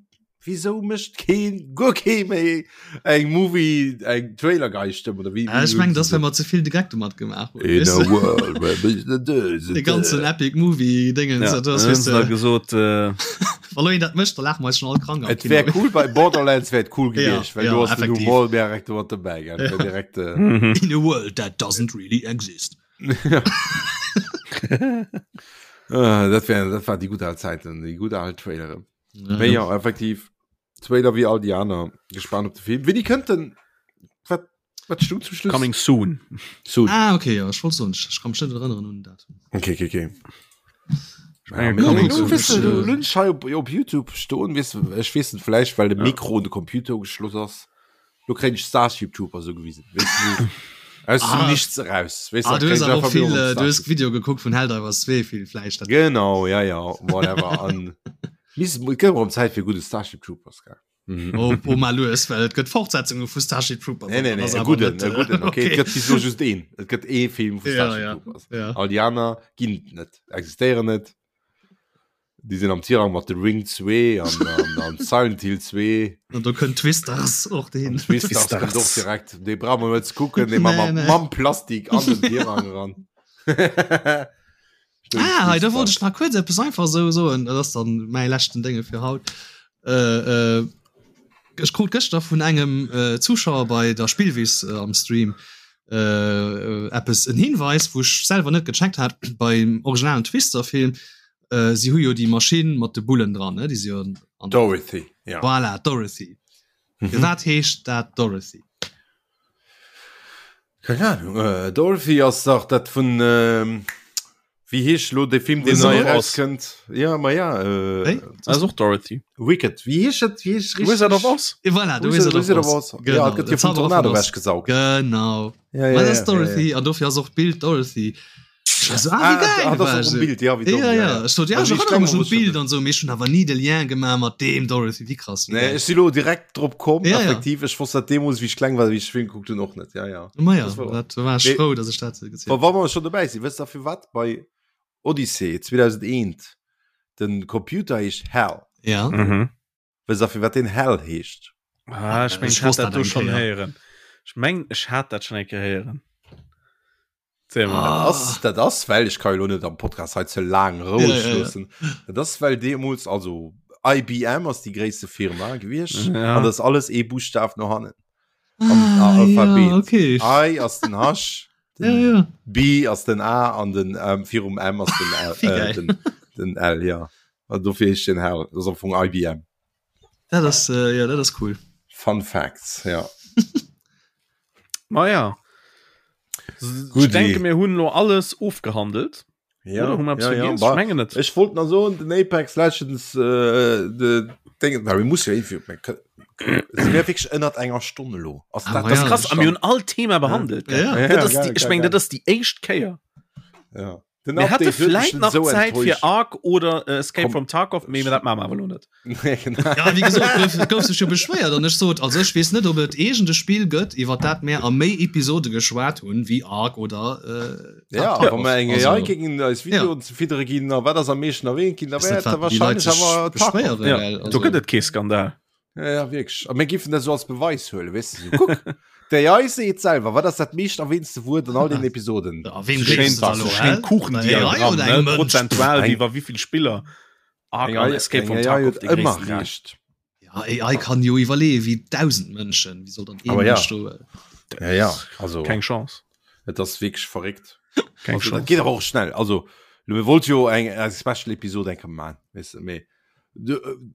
B: wieso mécht keen, guer kee méi eng Movie, eng Trailer-Gei-Stëmm oder wéi?
C: Ah, ech mengen, dass well mer ze vill de Geck domat gemaach hunn.
B: In a world where business
C: De ganzen Epic Movie Dingens,
A: Ja,
C: dat ass,
A: dann hunn
C: weess
A: se da
C: de,
A: gesot, äh,
C: wa lo een dat mécht, da laache mer eis schon all krank am
B: Et wär
C: Kino.
B: cool bei Borderlands wär et cool
C: Ja,
B: gewiescht, well
C: ja,
B: du hast den
C: effektiv.
B: Humor direkt mat dobäi, gell?
C: Ja.
B: Direkt, äh,
A: mhm.
C: In a world that doesn't really exist.
B: Äh, dat wär, dat war déi gutt al Zäiten, déi gutt al Traileren.
C: Ja.
B: Mee ja, effektiv, Trailer wéi all déi aner. Gespannt op de Film. Wéini kënnt den? Wat, wat stung zum Schluss?
A: Coming soon.
B: Soon.
C: Ah, okay, ja, ech wollt soen, ech kann mech net erënneren un den Datum.
B: Okay, okay, okay.
A: Ja,
B: Ja,
A: coming
B: du,
A: soon.
B: weißt du, du lunch hei op, op YouTube stoen, weißt du, ech weess net, vläicht well de
A: Ja.
B: Mikro un de Computer ugeschloss ass. Lo kréien ech Starship Troopers sou gewisen, weess du, sou aus dem
C: Ah.
B: Nichts eraus, weess
C: Ah,
B: du,
C: du hues
B: kréien ech
C: awer
B: einfach
C: och vill,
B: mol
C: äh, du hues
B: Starship.
C: Video gekuckt vun Helldivers 2 vill vläicht dat.
B: Genau, ja, ja, whatever. An mis, et gëtt erëm Zäit fir gudde Starship Troopers, gell? Mhm.
C: Oh, oh mal lues, well et gëtt Fortsetzunge vu Starship Troopers.
B: Nee, nee,
C: an
B: nee,
C: dat ass
B: e
C: awer
B: gudden,
C: net,
B: e
C: äh,
B: gudden, okay. Et
C: okay.
B: gëtt bis elo just een. Et gëtt ee Film vu
C: Ja,
B: Starship
C: ja,
B: Troopers.
C: ja.
B: All déi aner ginn et net, existéieren net. Déi sinn am Tirang mat The Ring 2 an, an, an Silent Hill 2.
C: An do kënnt Twisters och
B: An
C: dohin.
B: Twisters kënnt och direkt. Dee brauche mer net ze kucken, dee ma
C: Nee, nee.
B: mam Plastik an den Tirang eran.
C: Ah, hei, da wollt ech nach kuerz eppes einfach esou soen. Dat ass dann mäi leschten Dénge fir haut. Äh, äh, ech krut gëschter vun engem äh, Zuschauer bei der Spillwiss äh, am Stream äh, eppes en Hinweis, wou ech selwer net gecheckt hat beim originalen Twister-Film. Äh, si hu jo déi Maschinn mat de Bullen dran, ne? Déi si jo an, an
B: Dorothy, ja.
C: Voilà, Dorothy.
B: Mhm.
C: Firwat heescht dat Dorothy?
B: Keng Ahnung. Äh, Dorothy ass dach dat vun ähm, wéi heescht lo de Film, deen
A: Wizard
B: nei
A: of Oz.
B: erauskënnt? Ja, ma ja, äh,
C: Wéi?
A: Ass och Dorothy.
B: Wicked. Wéi heescht dat? Wéi heescht richtig?
A: Wizard of Oz.
C: Eh, Voilà, de
B: Wizard,
C: Wizard of Oz.
B: Ja,
C: Genau,
B: et gëtt
C: de
B: jo vum
C: Zauberer vun
B: Tornado
C: Oz.
B: wechgesaugt.
C: Genau.
B: Ja, ja,
C: Ma dat
B: ja,
C: ass
B: ja,
C: Dorothy
B: ja.
C: an dofir ass och d'Bild Dorothy. Ech war so, ah, wéi
B: Ah,
C: geil,
B: ah, dat
C: war
B: ass och
C: ech
B: um
C: so.
B: Bild, ja, wéi domm,
C: Ja,
B: ja,
C: ja.
B: ja.
C: Ech sot, ja,
B: Also,
C: ech
B: wéi ech
C: erënnere
B: kleng
C: mech
B: war,
C: un
B: wosst ech
C: d'Bild
B: dat net.
C: an sou, mee ech hunn awer ni de Lien gemaach mat deem Dorothy. Wéi krass, wéi
B: Nee,
C: geil.
B: ech si lo direkt drop komm,
C: Ja, ja.
B: effektiv. Ech wosst dat deemools, wéi ech kleng war, wéi ech de Film gekuckt hunn, och net. Ja, ja.
C: Ma ja,
B: Das war-
C: dat war ech
B: Nee.
C: frou, dass ech dat gezielt
B: Wa wa mer schon dobäi sinn, wësst der firwat bei Odyssey 2001 den Computer heescht Hal?
C: Ja.
A: Mhm.
B: Wësst der firwat den Hal heescht?
A: Ah, ech meng,
C: Ech
A: ech hat
C: wosst
A: dat
C: dat
A: do
C: eng
A: schon
C: Kéier.
A: héieren. Ech meng, ech hat dat schon eng Kéier héieren. Erzähl mal.
C: Ah.
B: Dat ass, dat ass well ech ka jo lo net am Podcast hei ze laang roueg
C: Ja, ja, ja.
B: loossen. Dat ass well deemools also IBM ass déi gréisste Firma gewiescht
A: Ja.
B: an dat ass alles ee Buschtaf no hannen. Am
C: Ah,
B: Alphabet.
C: ja, okay.
B: I ass den H,
C: Ja,
B: den
C: ja.
B: B ass den A an den ähm, virum M ass den L,
C: Wie
B: äh,
C: geil.
B: den, den L ja. An dofir heescht den Hal, dat ass am Fong IBM.
C: Dat ass, äh, ja, dat ass cool.
B: Fun Facts, ja.
A: Ma ja. Ech denke mir hunn lo alles ofgehandelt.
B: Ja, Oder, ja, ja, ja. Mengen net. Ech wollt nach soen den Apex Legends äh, de Ding, na, muss ja wéi ënnert enger Stonne lo.
A: Ass ah, dat, das ja, krass am hunn all Thema behandelt.
C: Ja. Ja. Ja,
A: ja, geil, ich meng dat ass déi éischt Kéier.
B: Ja.
A: Den Mir hätte vläit nach so Zäit fir Ark oder äh, Escape Komm. from Tarkov, mee dat maache mer awer lo net.
C: Ja, wéi gesot, gouf, gouf sech jo beschwéiert an ech sot, also ech weess net, ob et iergend e Spill gëtt, iwwer dat mär a méi Episode geschwat hunn, wéi Ark oder
B: äh, Ja, wa mer eng AI géingen eis Videoen ze fiddere ginn, a wat ass am meeschten erwähnt ginn, da
C: wär et da wahrscheinlech awer
A: Tarkov. Ja, do gëtt et kee Skandal.
B: Ja, ja, wierklech. A mir giffen dat so als Beweis huelen, weess de, so, kuck, d'AI seet selwer, wat ass dat meescht erwähntste Wuert an all den Episoden?
C: Ja, wem gleefs de da lo, hä?
A: Kuchendiagramm, ne? Prozentual, wéi wa wéivill Spiller
B: Ark an Escape from Tarkov déi
C: ëmmer recht. Ja, AI kann jo iwwerleeë wéi 1000 Mënschen, wéi soll dann ee
B: Mënsch do. Ja, ja,
A: also. Keng Chance.
B: Et ass wierklech verréckt. Keng also, Chance. Dat geet awer och schnell. Also, mir wollt jo eng, eng Special Episode eng Kéier man, weess de, mee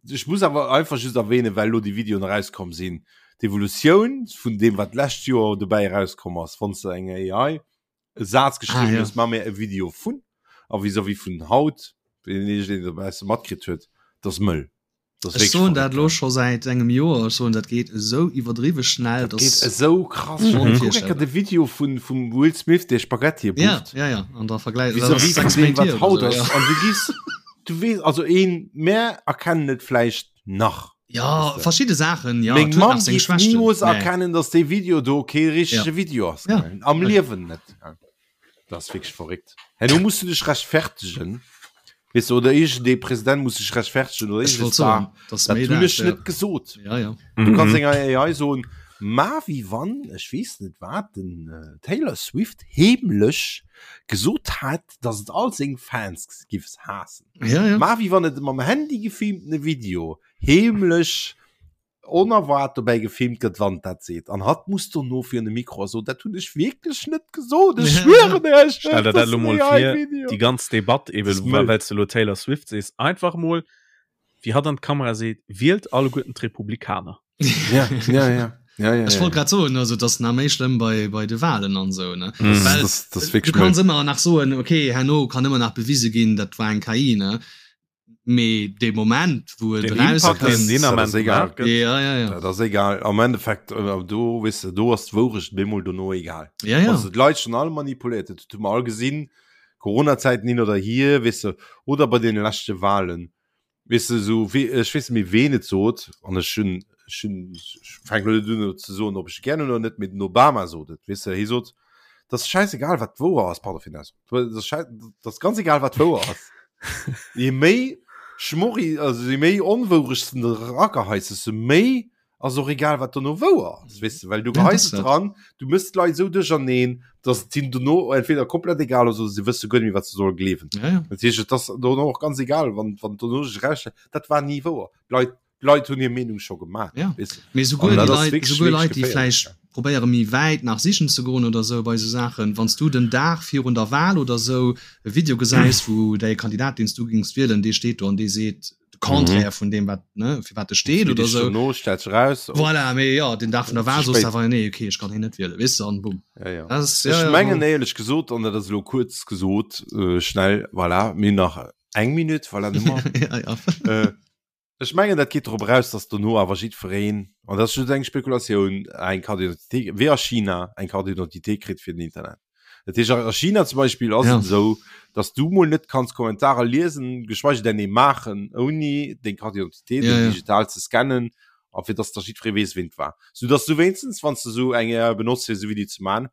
B: Ech muss awer einfach just erwähnen, well elo déi Videoen erauskomm sinn, d'Evolutioun vun deem, wat d'lescht Joer dobäi erauskomm ass, wann s de enger AI e Saz geschriwwen ah, ja. hues, ma mir e Video vun, a vis-à-vis vun haut, wéi een deen e matkritt huet, dat ass mëll.
C: Ech soen dat lo scho säit engem Joer, ech soen dat geet esou iwwerdriwwe schnell.
B: Dat geet esou krass mhm. Kuck enker de Video vun vum Will Smith, dee Spaghettie
C: bucht. Ja, ja, ja. An der Vergleich
B: vis-à-vis vun deem, wat haut ass. An du gis Du weess, also een, mär erkennen et vläicht nach.
C: Ja, verschidde Saachen,
B: ja. Meng Mamm géif nimools erkennen, dass dee Video do kee richtege ja. Video ass. Ja. Am Liewen net. Dat ass wierklech verréckt. Herno muss du dech rechtfertegen. Weess du, oder iergendee President muss sech rechtfertegen oder
C: iergendee Star.
B: Dat hunn ech net gesot.
C: Ja, ja.
B: Du kanns enger AI soen, ma wéi wann, ech weess net wat, den Taylor Swift heemlech gesot hat, dass et all seng Fans giffs haassen.
C: Ja, ja.
B: Ma wéi wann et mam Handy gefilmtene Video heemlech onerwaart dobäi gefilmt gëtt, wann dat seet. An hatt muss dono virun de Mikro a soen, dat hunn ech wierklech net gesot, ech schwieren
A: iech, Stell der dat elo mol vir, déi ganz Debatt eben, well s de elo Taylor Swift sees, einfach mol wéi hatt an d'Kamera seet, wielt alleguerten d'Republikaner.
B: Ja, ja, ja. Ja, ja,
C: Ech wollt grad soen, also dat ass nach méi schlëmm bei, bei de Wahlen an esou, ne?
B: Mm. Well das, das
C: du kanns ëmmer nach soen, okay, herno kann ëmmer nach bewise ginn, dat war eng KI, ne? Mee dee Moment, wou et
A: erauskënnt, deen Ament
B: egal.
C: Ja, ja, ja.
B: Dat ass egal. Am Endeffekt, äh, do, weess de, do ass d'Wourecht bemol dono egal.
C: Ja, ja.
B: Also d'Leit schon all manipuléiert, dat hu mer all gesinn, Corona-Zäiten hin oder hier, weess de, oder bei deene leschte Wahlen. Weess de, esou wéi, ech weess net méi ween et sot, an ech hunn, ech hunn, ech fänken elo net un ze soen, ob ech e gär hunn oder net, mee den Obama sot et, weess de, hie sot, et ass schäisegal wat wouer ass, pardon fir den Ausdrock, et ass schäi, et ass ganz egal wat wouer ass, je méi Schmorri, also je méi Onwourecht s de erageheis, desto méi ass och egal wat dono wouer ass, weess de, well du geheis et dran, du mëss d'Leit esou duercherneen, dass et hinnen dono entweder komplett egal ass oder se wësse guer net méi wat se solle gleewen.
C: Ja, ja.
B: Dat heescht, et ass dono och ganz egal, wann, wann dono sech erausstellt, dat war ni wouer. D'Leit, d'Leit hunn hir Meenung scho gemaach,
C: Ja.
B: weess de.
C: Mee souguer
B: An
C: déi
B: dat ass
C: Leit,
B: wierklech,
C: souguer
B: wierklech
C: Leit, déi
B: geféierlech,
C: vläicht
B: ja.
C: probéiere méi wäit nach sichen ze goen oder esou bei esou Saachen, wann s du den Dag virun der Wahl oder esou e Video gesäis, wou däi Kandidat, deen s du géings wielen, dee steet do an dee seet, de Contraire mhm. vun dem wat ne fir wat de steet oder
B: so no stellt raus
C: oh. voilà, mee ja den Dag vun der Wahl soos awer nee okay ech kann hin net wiele wis an
B: bumm ja, ja. Das, ja, ech mengen ja, éierlech gesot an dat ass lo kurz gesot äh, schnell voilà, mir nach eng Minute voilà,
C: ja, ja.
B: äh, Ech mengen dat geet drop eraus, datt dono awer jiddwereen, an dat ass just eng Spekulatioun, eng Carte d'identité, wéi a China, eng Carte d'identité kritt fir den Internet. Dat heescht, a China zum Beispill ass et esou, datt du mol net kanns Kommentarer liesen, geschweige denn ee maachen, ouni deng Carte d'identité do digital ze scannen a fir datt da jiddweree weess, ween et war. Soudatt du wéinstens, wann s de esou eng AI benotz fir esou Videoe ze maachen,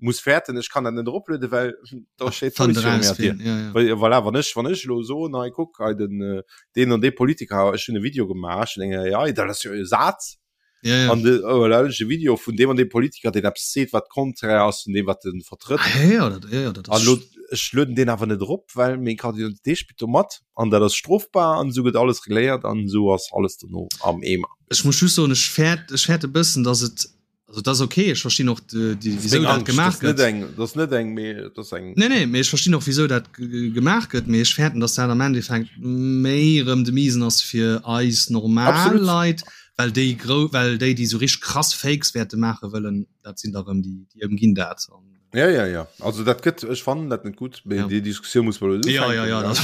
B: muss fäerten ech kann dat net eroplueden well da steet
C: Fand
B: d'Police viru
C: raus
B: menger Dier.
C: wien, ja, ja.
B: Well, voilà, wann ech wann ech elo soen hei kuck hei den äh, deen an dee Politiker ech hunn e Video gemaach ech hunn eng AI dat ass jo e Saz
C: Ja, ja.
B: an de oh, voilà, ech e Video vun deem an deem Politiker deen eppes seet wat konträr ass vun deem wat en vertrëtt
C: Ah, ja, ja, dat, ja, ja, dat
B: an
C: ass
B: lo ech lueden deen awer net erop well meng Carte d'identité spillt do mat an dat ass strofbar an esou gëtt alles regléiert an esou ass alles dono am Eemer.
C: Ech muss just soen, ech fäert, ech fäert e bëssen, dass et Also dat ass okay, ech verstinn och wéisou dat gemaach
B: gëtt. Dat ass net eng, mee dat ass eng.
C: Nee, nee, mee ech verstinn och wéisou dat gemaach gëtt, mee ech fäerten, datt dat am Endeffekt méi erëm de Miesen ass fir eis normal Leit, well déi grou, well déi, déi esou richteg krass Fakes wäerte maache wëllen, dat sinn da erëm déi, déi ëmginn dat.
B: Ja, ja, ja. Also dat gëtt ech fannen dat net gut ja. déi Diskussioun muss man
C: ja, ja, ja,
B: dat,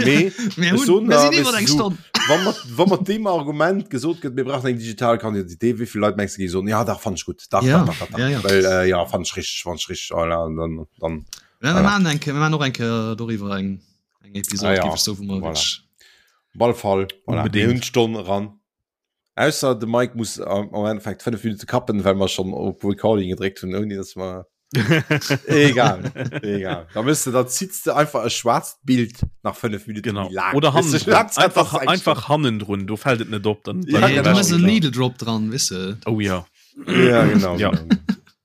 B: nee, wann mat wann mat dem Argument gesot gëtt mir brauchen eng digital Kandidité wéivill Leit mengst du gi soen ja dach fand ich gut dach,
C: ja.
B: dach, dach, dach,
C: ja, ja.
B: Well, äh, ja fand ich richtig fand ich richtig oh, ja, dann, dann
C: ja, wir machen eng wir machen och eng Kéier doriwwer eng eng Episode
B: ah, ja.
C: géif ech soen, wou mer
B: voilà.
C: wirklich
B: Op alle Fall voilà.
A: Unbedingt.
B: Mir hunn d'Stonn eran. Ausser de Mike muss am am Endeffekt 5 Minute kappen, well mer schon op Recording gedréckt hunn, ouni dass mer Egal, egal. Da müsst du, da ziehst du einfach e schwarzt Bild nach 5 Minuten
A: Genau.
B: méi laang.
A: Oder
B: Weißt du,
A: hannendrun.
B: Hauptsache,
A: Einfach,
B: das ist
A: einfach hannendrun, do fällt et net op. Dann,
B: Ja,
A: dann
C: Ja,
B: genau.
C: du machst en
A: klar.
C: Needle Drop dran, wisse de.
A: Oh ja.
B: Ja, genau.
A: Ja.
B: genau.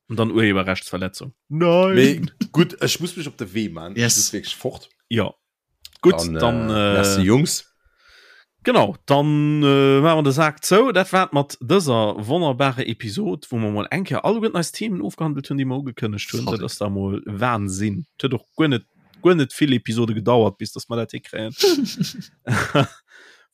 A: Und dann Urheberrechtsverletzung. Nein.
B: Mee gut, ech muss mech op de Wee man.
C: Yes.
B: Ich muss wirklich fort.
A: Ja. Gut, dann,
B: dann,
A: äh,
B: äh, merci, Jungs.
A: Genau, dann äh, maache mer de Sak zou. Dat war et mat dëser wonnerbarer Episod, wou mer mol eng Kéier alleguerten eis Themen ofgehandelt hunn, déi mer ugekënnegt hunn. Dat ass da mol Wahnsinn. Et huet och guer net, guer net vill Episode gedauert, bis dass mer dat hikréien.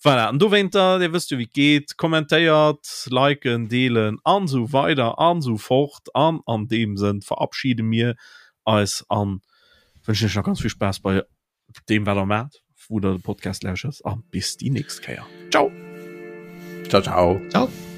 A: Voilà, an dowéinter, Dir wësst jo wéi et geet, kommentéiert, liken, deelen an esou weider an esou fort. An an deem Sënn verabschide mir eis an wënschen iech nach ganz vill Spaass bei deem wat der maacht, wou der de Podcast lauschert a bis déi nächst Kéier. Ciao!
B: Ciao, ciao.
C: Ciao.